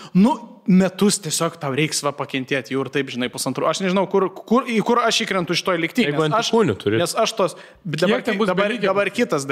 metus tiesiog tau reiks pakentėti jau ir taip, žinai, pusantrų. Aš nežinau, kur aš įkrentu iš to likti. Nes aš tos... Dabar kitas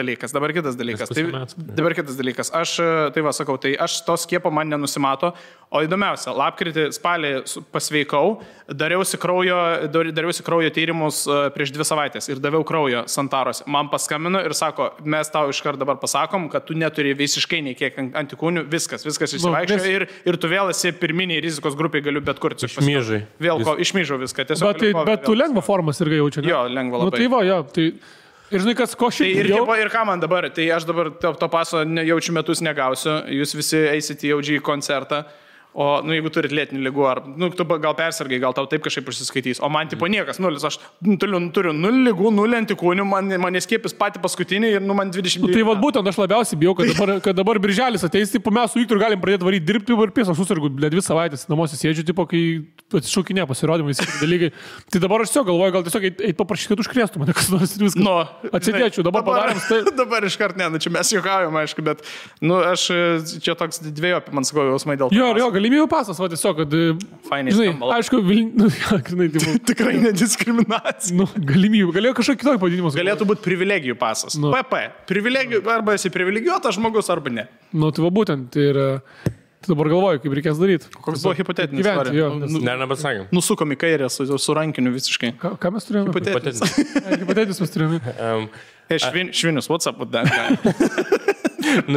dalykas. Aš, tai va, sakau, tai aš to skiepo man nenusimato. O įdomiausia, lapkritį, spalį pasveikau, dariausi kraujo tyrimus prieš 2 savaitės ir daviau kraujo Santaros. Man paskambino ir sako, mes tau iškart dabar pasakom, kad tu neturi visiškai nei kiek antikūnių, viskas išsivaikščio ir tu vėl esi pirminiai rizikos grupiai, galiu bet kur. Išmyžai. Išmyžau viską. Bet tu lengvą formą irgi jaučia, ne? Jo, lengvą labai. Tai va, jo, tai... Ir žinai, kas ko šiaip jau... Ir ką man dabar? Tai aš dabar to paso jaučiu metus negausiu, jūs visi eisite į OG koncertą, O, jeigu turit lėtinių ligų, ar, tu gal persirgai, gal tau taip kažkaip užsiskaitys. O man, tipo, niekas, 0. Aš turiu 0 ligų, 0 antikūnių, man skiepis pati paskutinį ir, man 20. Tai vad būtent aš labiausiai bijau, kad dabar birželis ateis, tipo, mes su Viktoru galim pradėti varyti dirbti ir pės, aš susirgu, 2 savaitės namuose sėdžiu, tipo, kai atsišaukinė pasirodymai, visi dalykai. Tai dabar aš galvoju, gal tiesiog eit paprašyti, kad užkrėstų mane, kas nors viskas. No, atsidėčiau, dabar padarėm. Tai... Dabar iškart ne, čia mes juokaujam, aišku, bet, aš čia toks dviejopį, man sakau, jausmai dėl to. Jo, galimybių pasas, va tiesiog, kad... Fainai, žinai, aišku, tikrai nediskriminacija. Galimybių, galėjo kažkokį kitokį pavadinimus. Galėtų būti privilegijų pasas. PP. Privilegijų, arba esi privilegijuotas žmogus, arba ne. Tai va būtent, tai yra... Tai dabar galvoju, kaip reikės daryti. Koks buvo hipotetinis istorija? Nepasakėm. Nusukom į kairę su rankiniu visiškai. Ką mes turėjome? Hipotetinis mes turėjome. Švinius, what's up with that guy?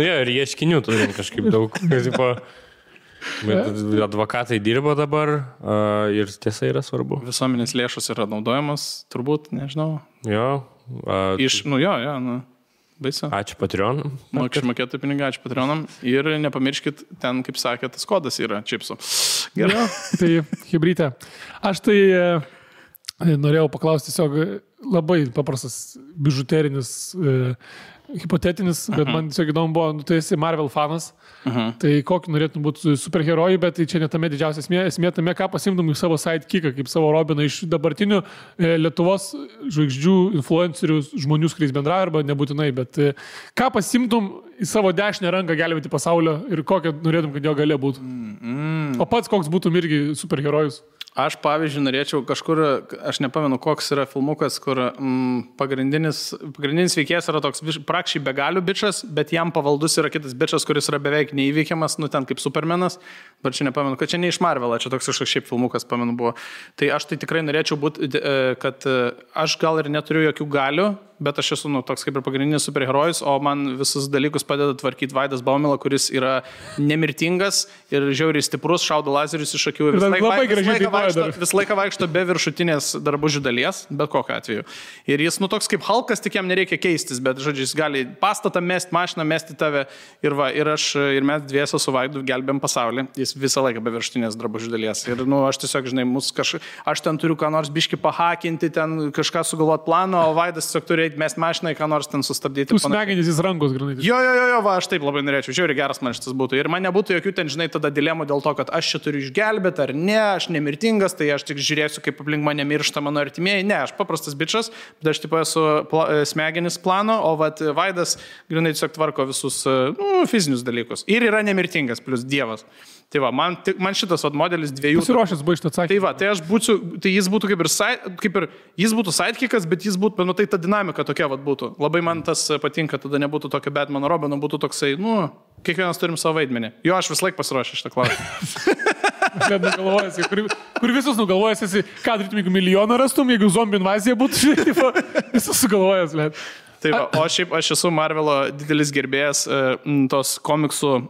Ir ieškinių turim kažkaip daug. Bet advokatai dirbo dabar ir tiesa yra svarbu. Visuomenės lėšos yra naudojamos, turbūt, nežinau. Jo. Baisu. Ačiū Patreonam. Mokesčių mokėtojų pinigai, ačiū Patreonam. Ir nepamirškit, ten, kaip sakė, tas kodas yra čipsų. Gerai. Tai hibrytė. Aš tai norėjau paklausti tiesiog labai paprastas bižuterinis, hipotetinis, bet man tiesiog įdomu buvo, tu esi Marvel fanas, tai kokį norėtum būti superherojų, bet tai čia ne tame didžiausia esmė tame, ką pasimtum į savo sidekicką, kaip savo Robiną iš dabartinių Lietuvos žvaigždžių, influencerių, žmonių, su kuriais bendrauja, arba nebūtinai, bet ką pasimtum į savo dešinę ranką gelbėti pasaulio ir kokią norėtum, kad jo galia būtų. O pats koks būtum irgi superherojus? Aš, pavyzdžiui, norėčiau kažkur, aš nepamenu, koks yra filmukas, kur pagrindinis veikėjas yra toks prakščiai begalių bičas, bet jam pavaldus yra kitas bičas, kuris yra beveik neįveikiamas, ten kaip Supermanas, bet čia nepamenu, kad čia ne iš Marvelą, čia toks kažkoks šiaip filmukas, pamenu, buvo. Tai aš tai tikrai norėčiau būti, kad aš gal ir neturiu jokių galių, bet aš esu toks kaip ir pagrindinis superherojus, o man visus dalykus padeda tvarkyti Vaidas Baumila, kuris yra nemirtingas ir žiauriai stiprus, šaudo lazerius iš akių. Vis laiką vaikšto be viršutinės drabužių dalies, bet kokiu atveju. Ir jis toks kaip Hulkas, tik jam nereikia keistis, bet, žodžiu, jis gali pastatą mesti, mašiną mesti tave ir mes dviese su Vaidu gelbėm pasaulį. Jis visą laiką be viršutinės drabužių dalies. Ir aš tiesiog, žinai, aš ten turiu ką nors biški pahakinti, ten kažką sugalvoti planą, o Vaidas tiesiog turi mes mašinai, ką nors ten sustabdyti. Jūs smegenys į rankos, granai. Jo, aš taip labai norėčiau. Žiauriai geras man šitas būtų. Ir man nebūtų jokių ten, žinai, tada dilemų dėl to, kad aš čia turiu išgelbėti ar ne, aš nemirtingas, tai aš tik žiūrėsiu, kaip aplink mane miršta mano artimieji. Ne, aš paprastas bičas, bet aš taip esu smegenis plano, o Vaidas granai tiesiog tvarko visus fizinius dalykus. Ir yra nemirtingas, plus Dievas. Tai va, man šitas modelis dviejų... Pasiruošęs buvo iš to atsakymą. Tai va, tai jis būtų kaip ir jis būtų sidekickas, bet jis būtų, tai ta dinamika tokia būtų. Labai man tas patinka, tada nebūtų tokio Batmano Robino, būtų toksai, kiekvienas turim savo vaidmenį. Jo, aš vis laik pasiruošęs šitą klausimą. Kur visus nugalvojęs esi, ką darytum, jeigu milijoną rastum, jeigu zombių invazija būtų, visus sugalvojęs, bet. Tai va, o šiaip aš esu Marvelo didelis gerbėjas tos komiksų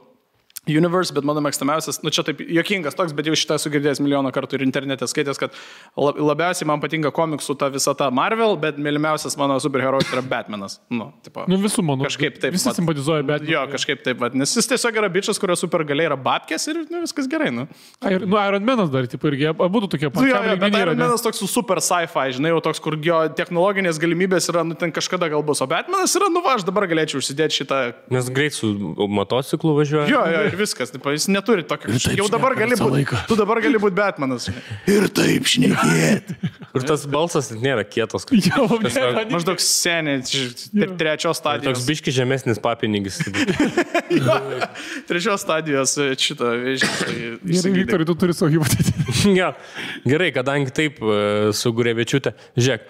Universe, bet mano mėgstamiausias, čia taip juokingas toks, bet jau šitą esu girdėjęs milijoną kartų ir internete skaitęs, kad labiausiai man patinka komiksų ta visata Marvel, bet mylimiausias mano superherojus yra Batmanas. Visų mano. Kažkaip taip. Visi simpatizuoja Batmaną. Jo, kažkaip taip, nes jis tiesiog yra bičas, kurio supergaliai yra babkės ir viskas gerai. Iron Manas dar, irgi, būtų tokie patys. Bet Iron Manas toks super sci-fi, žinai, jau toks, kur jo technologinės galimybės yra, ten kažkada gal bus, o Batmanas yra, aš dabar galėčiau užsidėti šitą. Nes greit su motociklu važiuoja. Jo, ir viskas, jis neturi tokio. Jau dabar gali būti. Tu dabar gali būti Batmanas. Ir taip šnekėti. Ir tas balsas nėra kietas. Maždaug seniai, trečios stadijos. Toks biški žemesnis papinigis. Trečios stadijos šito vėžį. Viktorai, tu turi savo hipotetinį. Gerai, kadangi taip su Gurevičiūte. Žiūrėk,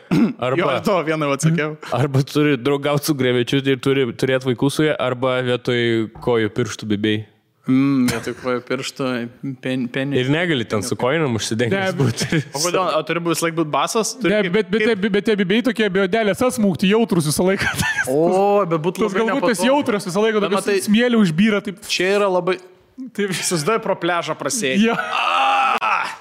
arba... Jo, to vieną atsakiau. Arba turi draugauti su Gurevičiūte ir turi turėti vaikų su ja, arba vietoj kojų pirštų bibėjai. Vietoj kojų pirštų penį. Ir negali ten su kojinam užsidengti būti. O kodėl? O turi vis laik būti basas? Bet tie bibėjai tokie biodelės asmūkti jautrus visą laiką. O, bet būtų labai nepatogu. Galbūt tas jautrus visą laiką, bet smėlį užbyra. Čia yra labai... Susidai pro pležą prasėti.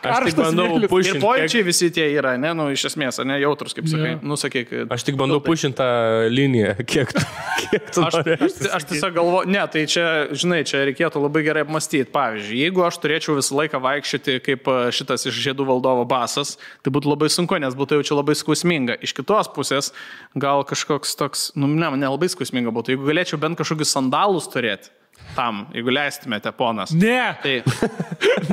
Aš tik bandau pušinti. Ir pojūčiai visi tie yra, ne, nu, iš esmės, ne, jautrus, kaip sakai. Nu, sakyk. Aš tik bandau pušinti tą liniją, kiek tu aš tiesiog galvoju, ne, tai čia, žinai, čia reikėtų labai gerai apmastyti. Pavyzdžiui, jeigu aš turėčiau visą laiką vaikščioti kaip šitas iš Žiedų valdovo basas, tai būtų labai sunku, nes būtų jaučiu labai skausminga. Iš kitos pusės, gal kažkoks toks, nu, ne labai skausminga būtų. Jeigu galėčiau bent kažkokius sandalus turėti, tam, jeigu leistumėte, ponas. Ne.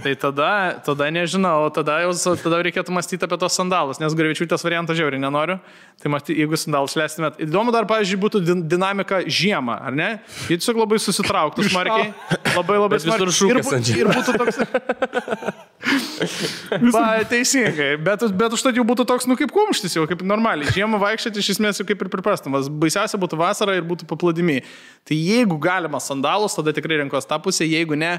Tai tada nežinau, tada reikėtų mąstyti apie tos sandalus, nes Grivičiūtės variantą žiauriai nenoriu. Tai jeigu sandalus leistumėt. Įdomu dar, pavyzdžiui, būtų dinamika žiemą, ar ne? Jie tiesiog labai susitrauktų smarkiai. Labai smarkiai. Ir būtų toks... Teisingai. Bet užtat jau būtų toks, nu kaip kumštis jau, kaip normaliai. Žiemą vaikščioti iš esmės jau kaip ir priprastamas. Baisiausia būtų vasara ir būtų paplūdimiai. Tai jeigu galima sandalus, tada tikrai renkos tą pusę, jeigu ne,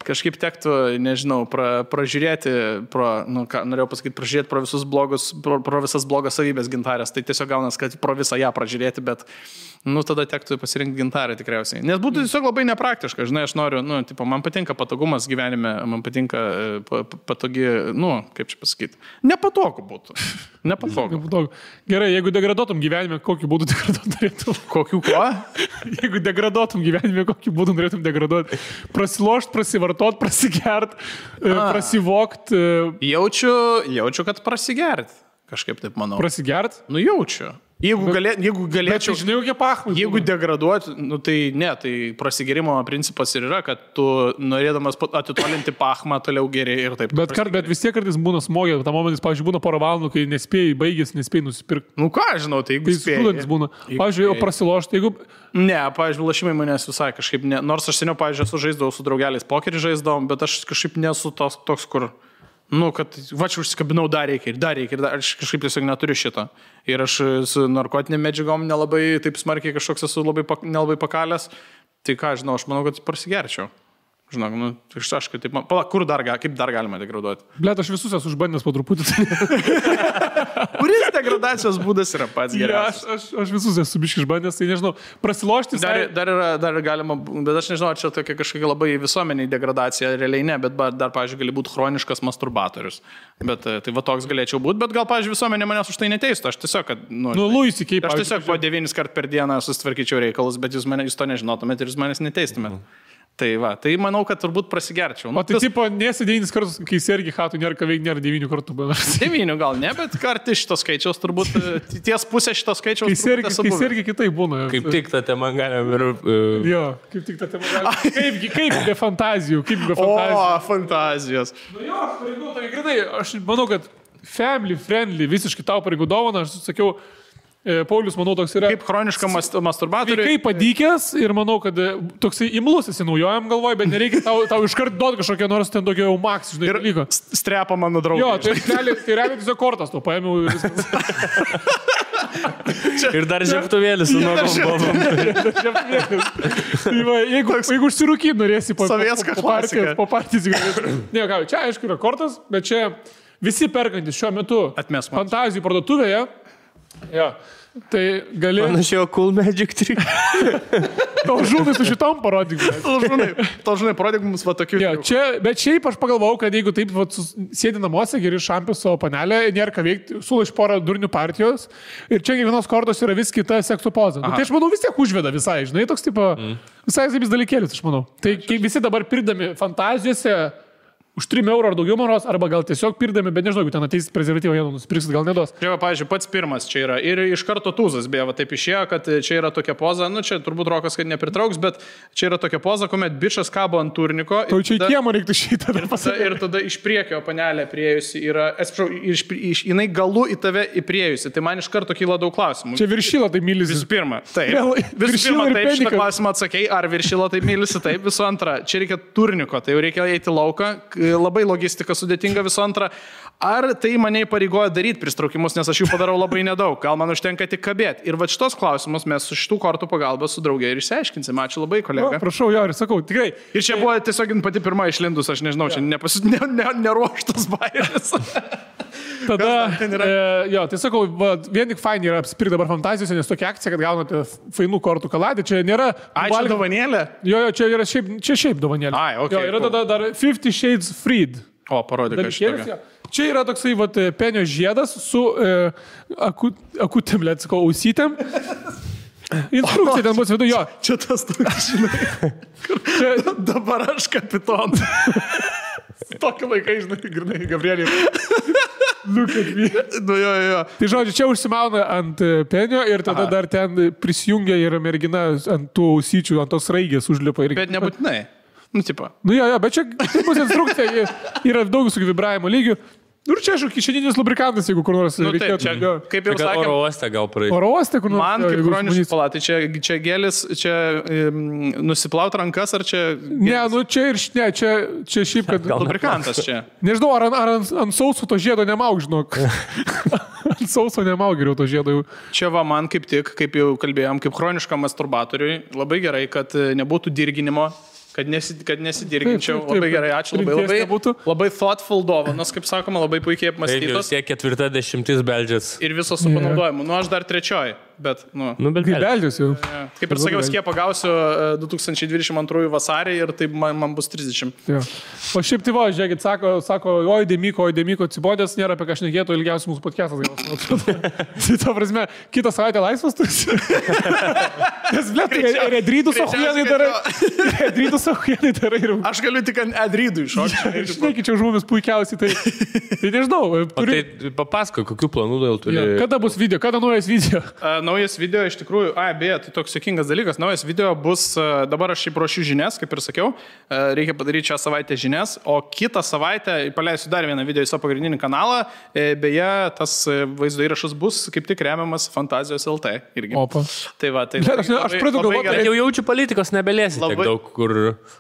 kažkaip tektų, nežinau, pražiūrėti, norėjau pasakyti, pražiūrėti pro visas blogas savybės gintarės, tai tiesiog gaunas, kad pro visą ją pražiūrėti, bet, nu, tada tektų pasirinkti gintarę tikriausiai. Nes būtų tiesiog labai nepraktiška, žinai, aš noriu, nu, tipo, man patinka patogumas gyvenime, man patinka patogi, nu, kaip čia pasakyti, nepatogu būtų. Nepatogu. Gerai, jeigu degraduotum gyvenime, kokiu būdu degraduot norėtum? Kokiu ko? Jeigu degraduotum gyvenime, kokiu būdu norėtum degraduoti? Prasilošt, prasivartot, prasigert, prasivokt. Jaučiu, kad prasigert. Kažkaip taip manau. Prasigert? Nu, jaučiu. Jeigu galėčiau... Bet žinai, kokie pachmai. Jeigu degraduoti, nu tai ne, tai prasigėrimo principas ir yra, kad tu norėdamas atitolinti pachmą toliau geriai ir taip. Bet vis tiek kartais būna smogė, tam momentais, pavyzdžiui, būna porą valandų, kai nespėjai, baigės, nespėjai nusipirkti. Nu ką, žinau, tai jeigu spėjai. Būna. Pavyzdžiui, o prasilošti, jeigu... Ne, pavyzdžiui, lašimai manęs visai kažkaip ne. Nors aš seniau, pavyzdžiui, esu žaisdavau su draugeliais pokerį žaisdavom, bet aš kažkaip nesu toks, kur... Nu, kad va čia užsikabinau, dar reikia, aš kažkaip tiesiog neturiu šito. Ir aš su narkotinėm medžiagom nelabai taip smarkiai kažkoks esu nelabai pakalęs. Tai ką, žinau, aš manau, kad prasigerčiau. Žinok, nu, aš kaip taip, kaip dar galima degraduoti? Blet, aš visus esu užbandęs po truputį. Kuris degradacijos būdas yra pats geriausias? Aš visus esu biškai išbandęs, tai nežinau, prasilošti... Dar galima, bet aš nežinau, ar čia tokia kažkokia labai visuomeniai degradacija, realiai ne, bet dar, pavyzdžiui, gali būti chroniškas masturbatorius. Bet tai va toks galėčiau būti, bet gal, pavyzdžiui, visuomenė manęs už tai neteistų. Aš tiesiog, kad... Luisi, kaip... Aš tiesiog po 9 kart per dieną susitvarkyčiau reikalus, bet jūs to nežinotumėt ir jūs manęs neteistumėt. Tai va, tai manau, kad turbūt prasigerčiau. O tai tipo, nesi 9 kartus, kai sergi hatų, nėra 9 kartų. 9 gal ne, bet kartai šito skaičiaus turbūt, ties pusė šito skaičiaus. Kai sergi kitaip būna. Kaip tik tą temą galim ir... Jo, kaip tik tą temą galim. Kaip be fantazijų, O, fantazijos. Nu jo, pareigų, tai grinai, aš manau, kad family friendly, visiškai tau pareigų dovana, aš sakiau, Paulius, manau, toks yra... Kaip chroniška masturbatorių. Kaip padykęs ir manau, kad toksai imlus esi naujojam galvoj, bet nereikia tau iškart duoti kažkokią nors ten tokio jau maks, žinai, dalyko. Strepa mano draugai. Jo, tai realiai tiesiog kortas, to paėmiau ir viskas. Ir dar žieptuvėlis su nogom bobom. Jeigu užsirūkyt norėsi po partijos. Ne, ką, čia aišku yra kortas, bet čia visi perkantis šiuo metu fantazijų parduotuvėje. Jo, tai gali... Panašiai, cool magic trick. Tau žūnai su šitom parodyk. Tau žūnai parodyk mums va tokių. Jo, bet šiaip aš pagalvojau, kad jeigu taip sėdi namuose, geri šampių savo panelę, nėra ką veikti, sulaš porą durnių partijos ir čia kiekvienos kortos yra vis kita sekso poza. Nu, tai aš manau vis tiek užveda visai, žinai, toks tipo, visai vis dalykėlis, aš manau. Tai visi dabar pirdami fantazijose už 3 eurų ar daugiau maros, arba gal tiesiog pirdami, bet nežinau, jeigu ten ateis prezervatyvą, jie nusipirksit, gal nedos. Čia, pavyzdžiui, pats pirmas čia yra ir iš karto tūzas, beje, va taip išėjo, kad čia yra tokia poza, nu čia turbūt Rokas, kad nepritrauks, bet čia yra tokia poza, kuomet bičas kabo ant turniko. Tai čia į kiemą reiktų šitą dar pasakyti. Ir tada iš priekio panelė priejusi yra, atsiprašau, jinai galu į tave įpriejusi, tai man iš karto kyla daug klausimų. Čia viršyla tai mylisi. Visų pirma, taip. Visų pirma, taip, šitą klausimą atsakei, ar viršyla tai mylisi, taip. Visų antra, čia reikia turniko, tai jau reikia eiti lauką, labai logistika sudėtinga. Visų antra, ar tai mane įpareigoja daryti pristraukimus, nes aš jų padarau labai nedaug, gal man užtenka tik kabėti. Ir va šitos klausimus mes su šitų kortų pagalba su draugė ir išsiaiškinsime. Ačiū labai, kolega. O, prašau, jo, ir sakau, tikrai. Ir čia buvo tiesiog pati pirma išlindus, aš nežinau, čia neruoštas bairis. Tada, jo, tai sakau, vien tik fainai yra apsipirkti dabar fantazijose, nes tokia akcija, kad gaunate fainų kortų kaladę, čia nėra... Čia dovanėlė? Jo, čia yra šiaip dovanėlė. Ai, okay, jo, yra tada dar 50 Shades Freed. O, parodyk, aš Dalykėlis, čia yra toksai penio žiedas su akutėm, lėtsiko, ausytėm. Instrukcija ten bus viduje, jo. Čia tas toks, žinai. Dabar aš kapitonas. Tokį laiką, žinai, Gabrielį. Look at me. Nu, jo. Tai žodžiu, čia užsimauna ant penio ir tada dar ten prisijungia ir mergina ant tų ausyčių, ant tos raigės užlipa. Bet nebūtinai. Nu, tipo. Nu, jo, bet čia bus instrukcija, yra daug visokių vibravimo lygių. Nu, ir čia, aišku, kišeninis lubrikantas, jeigu kur nors reikėtų. Taip, čia, kaip jau sakėm, oro uoste gal praeiti. Oro uoste, kur nors. Man kaip chroniškas palatai, čia gėlis, čia nusiplaut rankas, ar čia... Ne, nu čia ir čia šiaip, kad... Lubrikantas čia. Nežinau, ar ant sauso to žiedo nemaug, žinok. Ant sauso nemaug geriau to žiedo jau. Čia va man kaip tik, kaip jau kalbėjom, kaip chroniškam masturbatoriui, labai gerai, kad nebūtų dirginimo. Kad nesidirginčiau. Taip. Labai gerai, ačiū. Labai thoughtful dovanos, kaip sakoma, labai puikiai apmąstytos. Taip, jau 40 beldžias. Ir visos su panaudojimu. Nu, aš dar 3, bet, bet beldžias jau. Kaip ir sakiau, skiepą gausiu 2022 vasarį ir tai man bus 30. Ja. O šiaip tai žiūrėkit, sako, oi, Demiko, atsibodęs, nėra apie ką šnekėtų, ilgiausiai mūsų podcastas gausiu. Tai ta prasme, kitą savaitę laisvas tu. Nes, blėt, redrydus ohuienai darai. Aš galiu tik ant edrydų iššokti. Žinai, čia už mumis puikiausiai, tai nežinau. O tai papasako, kokių planų dėl turi? Kada bus video, kada naujas video? Naujas video iš tikrųjų, beje, tai toks juokingas dalykas, naujas video bus, dabar aš šiaip ruošiu žinias, kaip ir sakiau, reikia padaryti šią savaitę žinias, o kitą savaitę paleisiu dar vieną video į savo pagrindinį kanalą, beje, tas vaizdo įrašas bus kaip tik remiamas Fantazijos LT irgi. Opa. Tai va, tai... Aš pradedu galvoti, kad jau jaučiu politikos nebelėsi tiek daug, kur...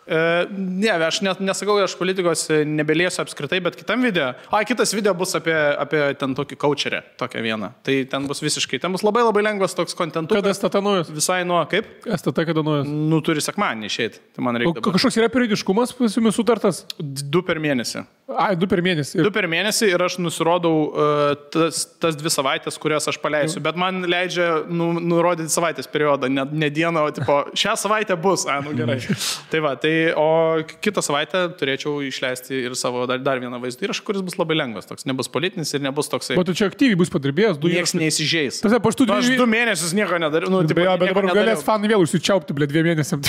Ne, aš nesakau, aš politikos nebelėsiu apskritai, bet kitam video, kitas video bus apie ten tokį coacherę, tokią vieną. Tai ten bus visiškai, ten bus labai lengvas toks kontentas. Kada STT naujas? Visai nuo, kaip? STT kada naujas? Nu, turi sekmanį išeiti. Tai man reikia. O kažkoks yra periodiškumas pas jumis sutartas? 2 per mėnesį. 2 per mėnesį. 2 per mėnesį ir aš nusirodau tas 2 savaitės, kurias aš paleisiu, bet man leidžia nurodyti savaitės periodą, ne dieną, o tipo, šią savaitę bus, nu gerai. Tai va, o kitą savaitę turėčiau išleisti ir savo dar vieną vaizdą įrašą, kuris bus labai lengvas, toks nebus politinis ir nebus toksai. O tu čia aktyviai bus padirbėjęs, Niekas neįsižeis. Aš 2 mėnesius nieko nedariau. Bet dabar galės fanai vėl užsičiaupti, 2 mėnesiam.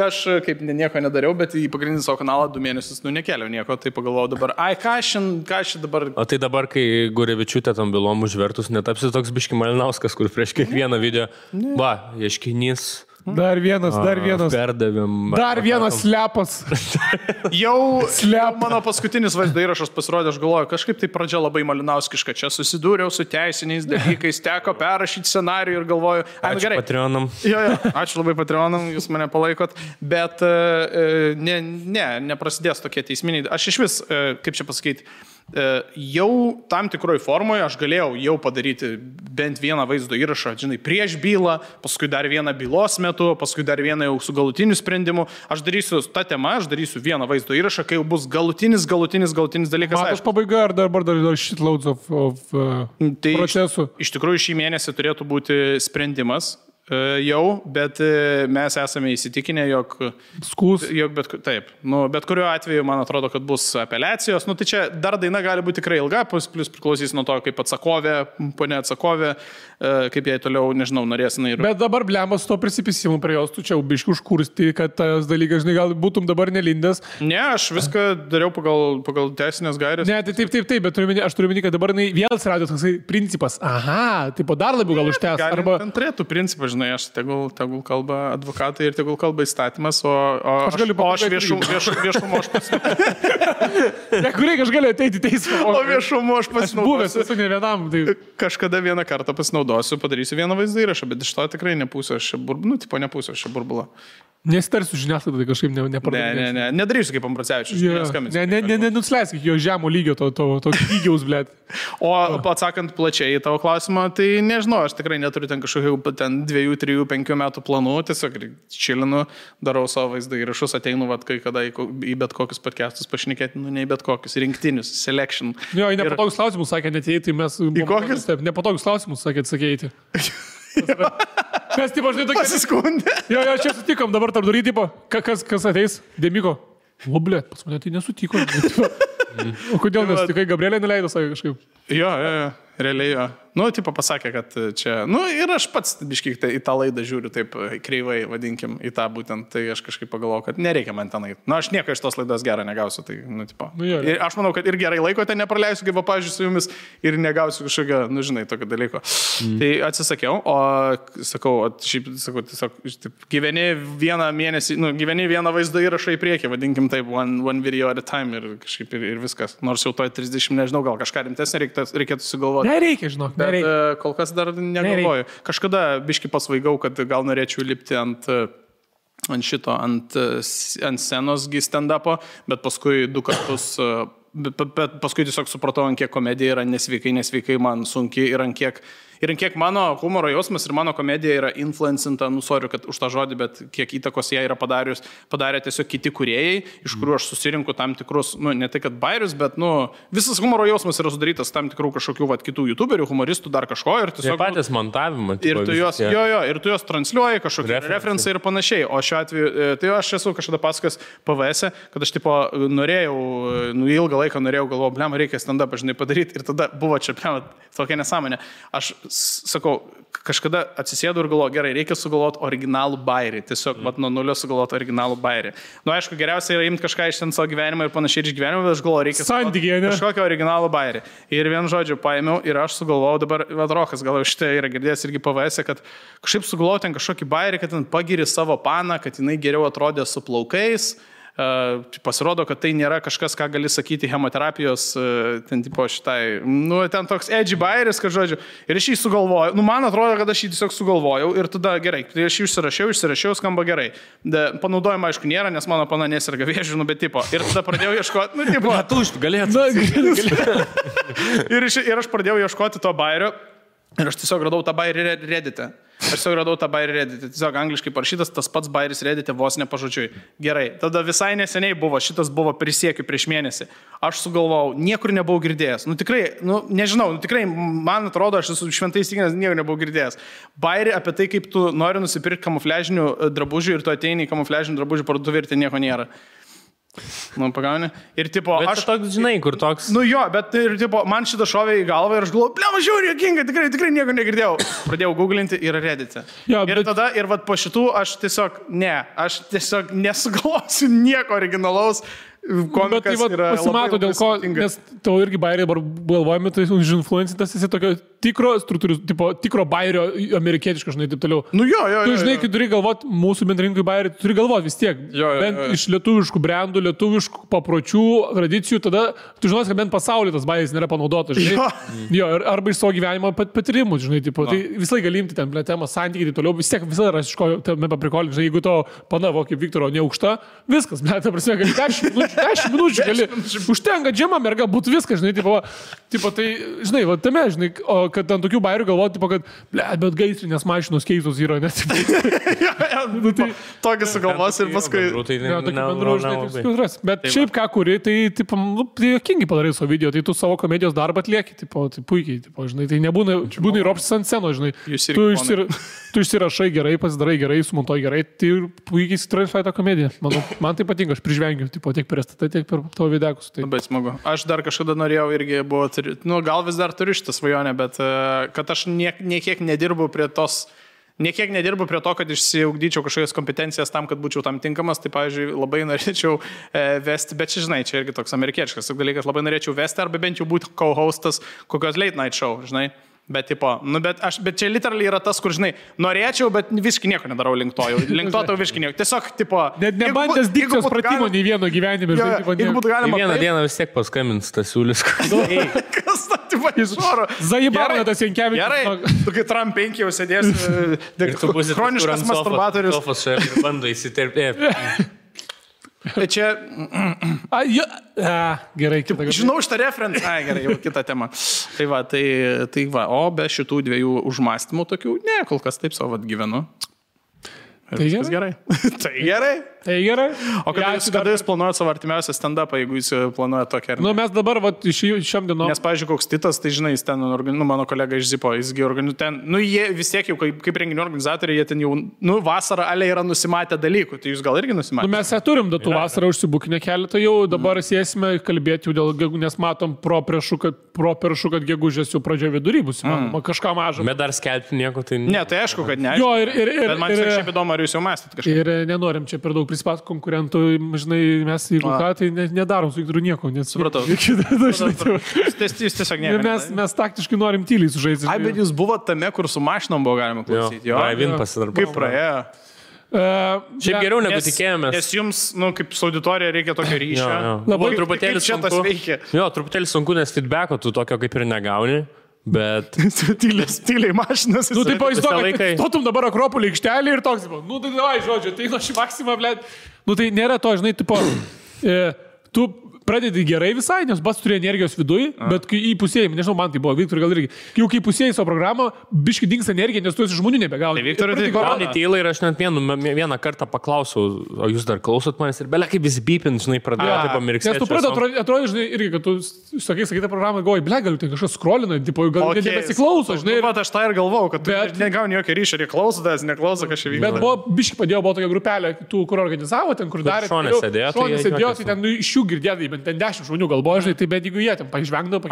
Aš kaip nieko nedariau, bet į pagrindinį savo kanalą 2 mėnesius nekeliau nieko, tai pagalvojau dabar, ką aš dabar... O tai dabar, kai Gurevičiūtė tam bylom užvertus, netapsi toks biški Malinauskas, kur prieš kiekvieną video, ieškinys... Dar vienas. Perdavėm. Dar vienas slepas. Jau mano paskutinis vaizdo įrašas pasirodė, aš galvoju, kažkaip tai pradžia labai malinauskiška. Čia susidūriau su teisiniais dalykais, teko perrašyti scenarijų ir galvoju, ačiū Patreonam. Jo, ačiū labai Patreonam, jūs mane palaikot, bet neprasidės tokie teisminiai. Aš iš vis, kaip čia pasakyti, jau tam tikroj formoje aš galėjau jau padaryti bent vieną vaizdo įrašą, žinai, prieš bylą, paskui dar vieną bylos metu, paskui dar vieną jau su galutiniu sprendimu. Aš darysiu tą temą, aš darysiu vieną vaizdo įrašą, kai jau bus galutinis dalykas. Matas pabaiga ar dar shitloads of procesų? Iš tikrųjų šį mėnesį turėtų būti sprendimas. Jau, bet mes esame įsitikinę, jog bet kuriuo atveju, man atrodo, kad bus apeliacijos. Tai čia dar daina gali būti tikrai ilga, plus priklausys nuo to, kaip atsakovė, ponė atsakovė, kaip jai toliau, nežinau, norės. Bet dabar blembas su to prisipisimu prie jos, tu čia biškiu užkursti, kad tas dalykas, žinai, gal būtum dabar nelindęs. Ne, aš viską dariau pagal teisinės gairės. Ne, tai taip, bet aš turiu minėti, kad dabar vėl atsirado toksai principas. Aha, taip dar labiau gal užtęs. Ten turėtų principas, aš tegul kalba advokatai ir tegul kalba įstatymas, o aš viešumo aš pasinaudosiu. Aš galiu ateiti į teismą. O viešumo aš pasinaudosiu. Buvęs esu ne vienam. Tai... Kažkada vieną kartą pasinaudosiu, padarysiu vieną vaizdą įrašą, bet iš to tikrai nepūsiu aš burbulą. Nesitarsiu žiniasklaidą, tai kažkaip nepardavėsiu. Ne, nedarysiu kaip Ambracevičius. Nenusileisk jo žemo lygio, to lygiaus, blėt. O atsakant plačiai į tavo klausimą, tai nežinau, aš tikrai neturiu ten kažkokių 2, 3, 5 metų planų, tiesiog čilinu, darau savo vaizdą įrašus, ateinu kai kada į bet kokius podcastus pašnekėti, ne į bet kokius, rinktinius, selection. Jo, į nepatogus klausimus sakė netėjai, tai mes... Į kokius? Nepatogus klausimus sakė atsakėjai. Mes, tipo, žinai, tokie... Pasiskundė. Jo, čia sutikom, dabar tarp durį, tipo, kas ateis? Demiko. O, blėt, pas mane tai nesutiko. O kodėl nesutikai? Gabrielė neleido savo kažkaip? Jo, realiai jo. Nu, tipo pasakė, kad čia... Nu, ir aš pats biškiai į tą laidą žiūriu taip kreivai, vadinkim, į tą būtent. Tai aš kažkaip pagalvojau, kad nereikia man tenai. Nu, aš nieko iš tos laidos gerą negausiu. Tai, nu, tipo. Nu, jo, ir aš manau, kad ir gerai laiko ten nepraleisiu, kaip pavyzdžiui, su jumis ir negausiu kažkokio, nu, žinai, tokio dalyko. Tai atsisakiau, o sakau, šiaip, sakau, tiesiog, gyveni vieną mėnesį, nu, gyveni vieną vaizdą įrašą į priekį, vadinkim taip, one video at a time ir kažkaip ir viskas. Nors jau toj 30, nežinau, gal kažką rimtesnį reikėtų sugalvoti. Nereikia, žinok. Bet kol kas dar negalvoju. Kažkada biški pasvaigau, kad gal norėčiau lipti ant scenos stand-upo, bet paskui 2 kartus, bet paskui tiesiog supratau, ant kiek komedija yra nesveikai man sunki ir ant kiek mano humoro jausmas ir mano komedija yra influencinta, nusoriu, kad už tą žodį, bet kiek įtakos ją yra padarė tiesiog kiti kūrėjai, iš kurių aš susirinku tam tikrus, nu, ne tai kad bairius, bet, nu, visas humoro jausmas yra sudarytas tam tikrų kažkokių, kitų youtuberių, humoristų, dar kažko ir tiesiog... Tai patys montavimą. Ir tu juos, ir tu juos transliuoji, kažkokie referencai ir panašiai. O šiuo atveju, tai aš esu kažkada pasakojęs PVS, kad aš tipo norėjau, nu, ilgą laiką galvojau, blema, reikia stand-up, žinai, padaryti ir tada buvo čia, blema, tokia nesąmonė. Aš sakau, kažkada atsisėdu ir galvoju, gerai, reikia sugalvoti originalų bairį. Tiesiog, nuo nulio sugalvoti originalų bairį. Nu, aišku, geriausia yra imti kažką iš ten savo gyvenimą ir panašiai iš gyvenimo, bet aš galvoju, reikia kažkokio originalų bairį. Ir vien žodžiu paėmiau ir aš sugalvojau dabar, Rokas, gal šitai yra girdėjęs irgi PVS, kad kažkaip sugalvojau ten kažkokį bairį, kad ten pagiri savo paną, kad jinai geriau atrodė su plaukais. Pasirodo, kad tai nėra kažkas, ką gali sakyti chemoterapijos, ten tipo šitai, nu, ten toks edgy bairis, kad žodžiu, ir aš jį sugalvojau, nu, man atrodo, kad aš jį tiesiog sugalvojau ir tada gerai, tai aš jį išsirašiau, skamba gerai. Panaudojimo, aišku, nėra, nes mano pana nesirga vėžiu, nu, bet tipo, ir tada pradėjau ieškoti, nu, tipo, ir aš pradėjau ieškoti to bairio. Ir aš tiesiog radau tą bairį Reddit'e. Tiesiog angliškai parašytas, tas pats bairis Reddit'e vos nepažodžiui. Gerai, tada visai neseniai buvo, šitas buvo prisiekiu prieš mėnesį. Aš sugalvojau, niekur nebuvau girdėjęs. Nu tikrai, nu nežinau, nu tikrai, man atrodo, aš esu šventai įsitikinęs, niekur nebuvau girdėjęs. Bairį apie tai, kaip tu nori nusipirkti kamufliažinių drabužių ir tu ateini į kamufliažinių drabužių parduotuvę ir ten nieko nėra. Nu, pagauni. Ir tipo, bet aš toks, žinai, kur toks... Nu jo, bet ir tipo, man šitą šovė į galvą ir aš galvoju, blema, žiūrėjau, jokinga, tikrai nieko negirdėjau. Pradėjau googlinti ir Reddit'e. Ja, ir tada, ir vat po šitų aš tiesiog nesugalvosiu nieko originalaus. Bet tai pasimato dėl ko, nes tau irgi bairiai dabar galvojami, tai užinfluencintas esi tokio tikro bairio amerikietiško, žinai, taip toliau. Nu jo. Tu žinai, kai turi galvoti mūsų bendrinkui bairį, tu turi galvoti vis tiek. Bent iš lietuviškų brandų, lietuviškų papročių, tradicijų, tada tu žinosi, kad bent pasaulyje tas bairis nėra panaudotas, žinai. Jo, arba iš savo gyvenimo patyrimų, žinai, tipo, tai visai galimti ten temą, santykiai, tai toliau, vis tiek visada ras iš ko tame paprikolinti, žinai, jeigu to panavo kaip Viktoro neaukšta, viskas, ta prasme, gali 10 minučių gali. Užtenka džema merga, būtų viskas, žinai, tipo, tai, žinai, va tame, žinai, o kad ant tokių bairių galvoti, tipo, kad, bet gaisrinės mašinos keistos yra, nes... Tokį sugalvos ir paskui... Bet šiaip ką kuri, tai, tipo, jokingai padarai savo video, tai tu savo komedijos darbą atlieki, tipo, tai puikiai, tipo, žinai, tai nebūna ir opsis ant scenos, žinai. Tu išsirašai gerai, pasidarai gerai, sumontuoji gerai, tai puikiai įsitransliuoji tą komediją. Man tai patinka, aš prižvengiu, tipo, tiek per STT, tiek per tavo videkus. Tai... Labai smagu. Aš dar kažkada norėjau irgi buvo, gal vis dar turiu šitą svajonę, bet kad aš niekiek nedirbu prie to, kad išsiugdyčiau kažkokias kompetencijas tam, kad būčiau tam tinkamas, tai, pavyzdžiui, labai norėčiau vesti, bet čia, žinai, čia irgi toks amerikietiškas dalykas, labai norėčiau vesti arba bent jau būti co-hostas kokios late night show, žinai. Bet, tipo, bet čia literaliai yra tas, kur, žinai, norėčiau, bet visiškai nieko nedarau link to visiškai nieko. Tiesiog, tipo... Net nebandęs dikcijos pratimo nei vieno gyvenime. Vieną dieną vis tiek paskambins tas siūlis. Kas ta, tipo, iš oro? Zajibarna tas Jankevičius. Gerai, tu kai Trump 5 jau sėdės, chroniškas masturbatorius. Sofas ir bando įsiterpėti. Čia... Gerai, žinau šitą referenciją. Gerai, jau kita tema. Tai va, o be šitų dviejų užmąstymų tokių, ne, kol kas taip savo gyvenu. Tai gerai. Tai gerai. Tai gerai. O kada jūs planuojate savo artimiausią stand-upą, jeigu jūs planuojate tokią? Nu, mes dabar, šiam dienom. Nes, pavyzdžiui, koks Titas, tai žinai, jis ten, mano kolega iš Zipo, jisgi ten, jie vis tiek jau kaip renginių organizatoriai, jie ten jau, vasarą ale yra nusimatę dalykų, tai jūs gal irgi nusimatę? Nu, mes turim datų vasarą užsibukinę keletą jau, dabar sėsime kalbėti jau dėl, nes matom properšu, kad gegužės jau pradžio vidury bus, kažką mažą. Bet dar skelbti nieko, tai... Ne, tai aišku, kad ne. Jo, bet man šiaip įdomu, ar jūs jau mąstėt kažką. Ir nenorim čia per daug prispat konkurentų, žinai, mes jeigu ką, tai nedarom su Viktoru nieko. Supratau. Jūs tiesiog nieko. Mes taktiškai norim tyliai sužaisti. Ai, bet jūs buvo tame, kur su mašinom buvo galima klausyti. Jo, kaip praėjo. Šiaip geriau negu tikėjomės. Nes jums, kaip su auditorija reikia tokio ryšio. Labai truputėlį sunku. Jo, truputėlį sunku, nes feedbacko tu tokio kaip ir negauni. Bet... Tyliai mašinas. Nu, taip, įsivaizduoju, stotum dabar Akropolį aikštelį ir toks, tai davai, žodžiu, tai nuo šį maksimą, blėt. Nu, tai nėra to, žinai, tipo, tu pradedi gerai visai, nes bas turi energijos viduje, bet kai įpusėjai, nežinau, man tai buvo, Viktor gal irgi, jau kai įpusėjai savo programą, biški dings energija, nes tu esi žmonių nebegauni. Tai Viktorai tai gauni tylą ir aš net vieną kartą paklausiau, o jūs dar klausot manęs ir belia kaip visi beepint, žinai, pradėjo taip pamirksėti. Nes tu pradėjo, atrodo, žinai, irgi, kad tu sakai tą programą, galvoji, belia, galiu tai kažkas scrollina, tipo, gal nebesiklauso, žinai. Bet aš tą ir galvojau, kad tu negauni jokio ryšio, ir klausotės, neklauso kažkaip vyksta. Bet buvo, biški padėjo, buvo tokia grupelė, tų, kur organizavo, ten, kur darė. Šonė sėdėjo, tai ten iš jų girdėdai, bet ten 10 žmonių galvoja, žinai, tai bet jeigu jie ten pažvengdavo,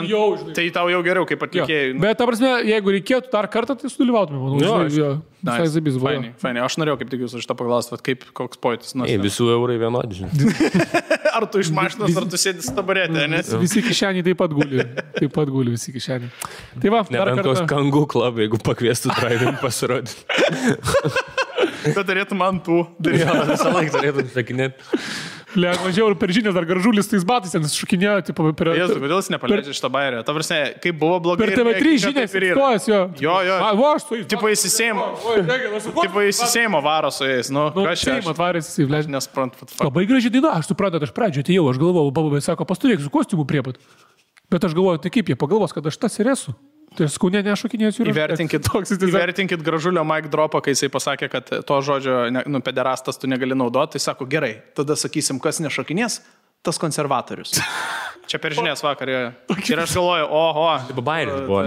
jau, žinai. Tai tau jau geriau, kaip atlikėjai. Bet, ta prasme, jeigu reikėtų dar kartą, tai sudalyvautume, manau. Fainai, aš norėjau kaip tik jūs iš tą paklausti, kaip koks pojūtis. Visų eurai vienodi, žinai. Ar tu iš mašinos, ar tu sėdi su taburetė, nes? Visi kišeniai taip pat guli, visi kišeniai. Tai va, nebent koks kangų klub, jeigu pakviestų drive-in pasirodyti. Bet turėtum ant tų. Jo, visą laiką turėtum sakinėti. Važiavau ir per žinias dar gražulis tais batais, ten šukinėjo, tipo, per... Jezu, kodėl jis nepaleidžia šitą bairę? Ta prasme, kaip buvo blogai... Per TV3 žinias, stojas jo. Jo. Va, aš su jais. Tipo įsisėjimo varo su jais. Nu, kas čia? Atvarės jisai, vlež. Nesprantu. Labai gražiai daina, aš supratau, aš pradžioje atėjau, aš galvojau, bababė sako, pasturėk su kostiumu priepat. Bet aš galvoju, tai kaip jie pagalvos, kad aš tas ir esu. Tai skaunė nešokinėsiu ir įvertinkit gražulio mic dropą, kai jisai pasakė, kad to žodžio, pederastas tu negali naudoti, tai sako, gerai, tada sakysim, kas nešokinės, tas konservatorius. Čia per žinias vakar. Ir aš galvoju, oho. Taip, bairis buvo.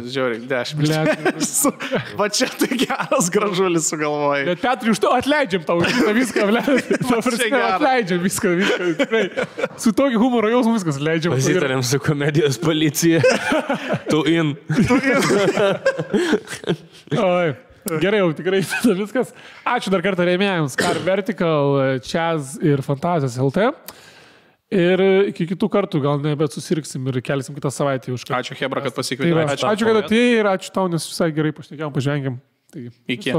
Žiauriai, 10. Va čia tai geras gražulis sugalvojai. Bet Petrai, už to atleidžiam tau viską, atleidžiam viską. Tikrai. Su tokiu humoro jausmu viskas atleidžiam. Pasitarėm su komedijos policija. Tu in. Oi. Gerai, jau tikrai viskas. Ačiū dar kartą rėmėjams. Car Vertical, Chaz ir Fantazijos LT. Ir iki kitų kartų gal nebet susirksim ir kelsim kitą savaitę už ką. Ačiū Hebra, kad pasikvietė. Ačiū, kad atėjai ir ačiū tau, nes visai gerai pašnekėjom, pažvengėm. Iki.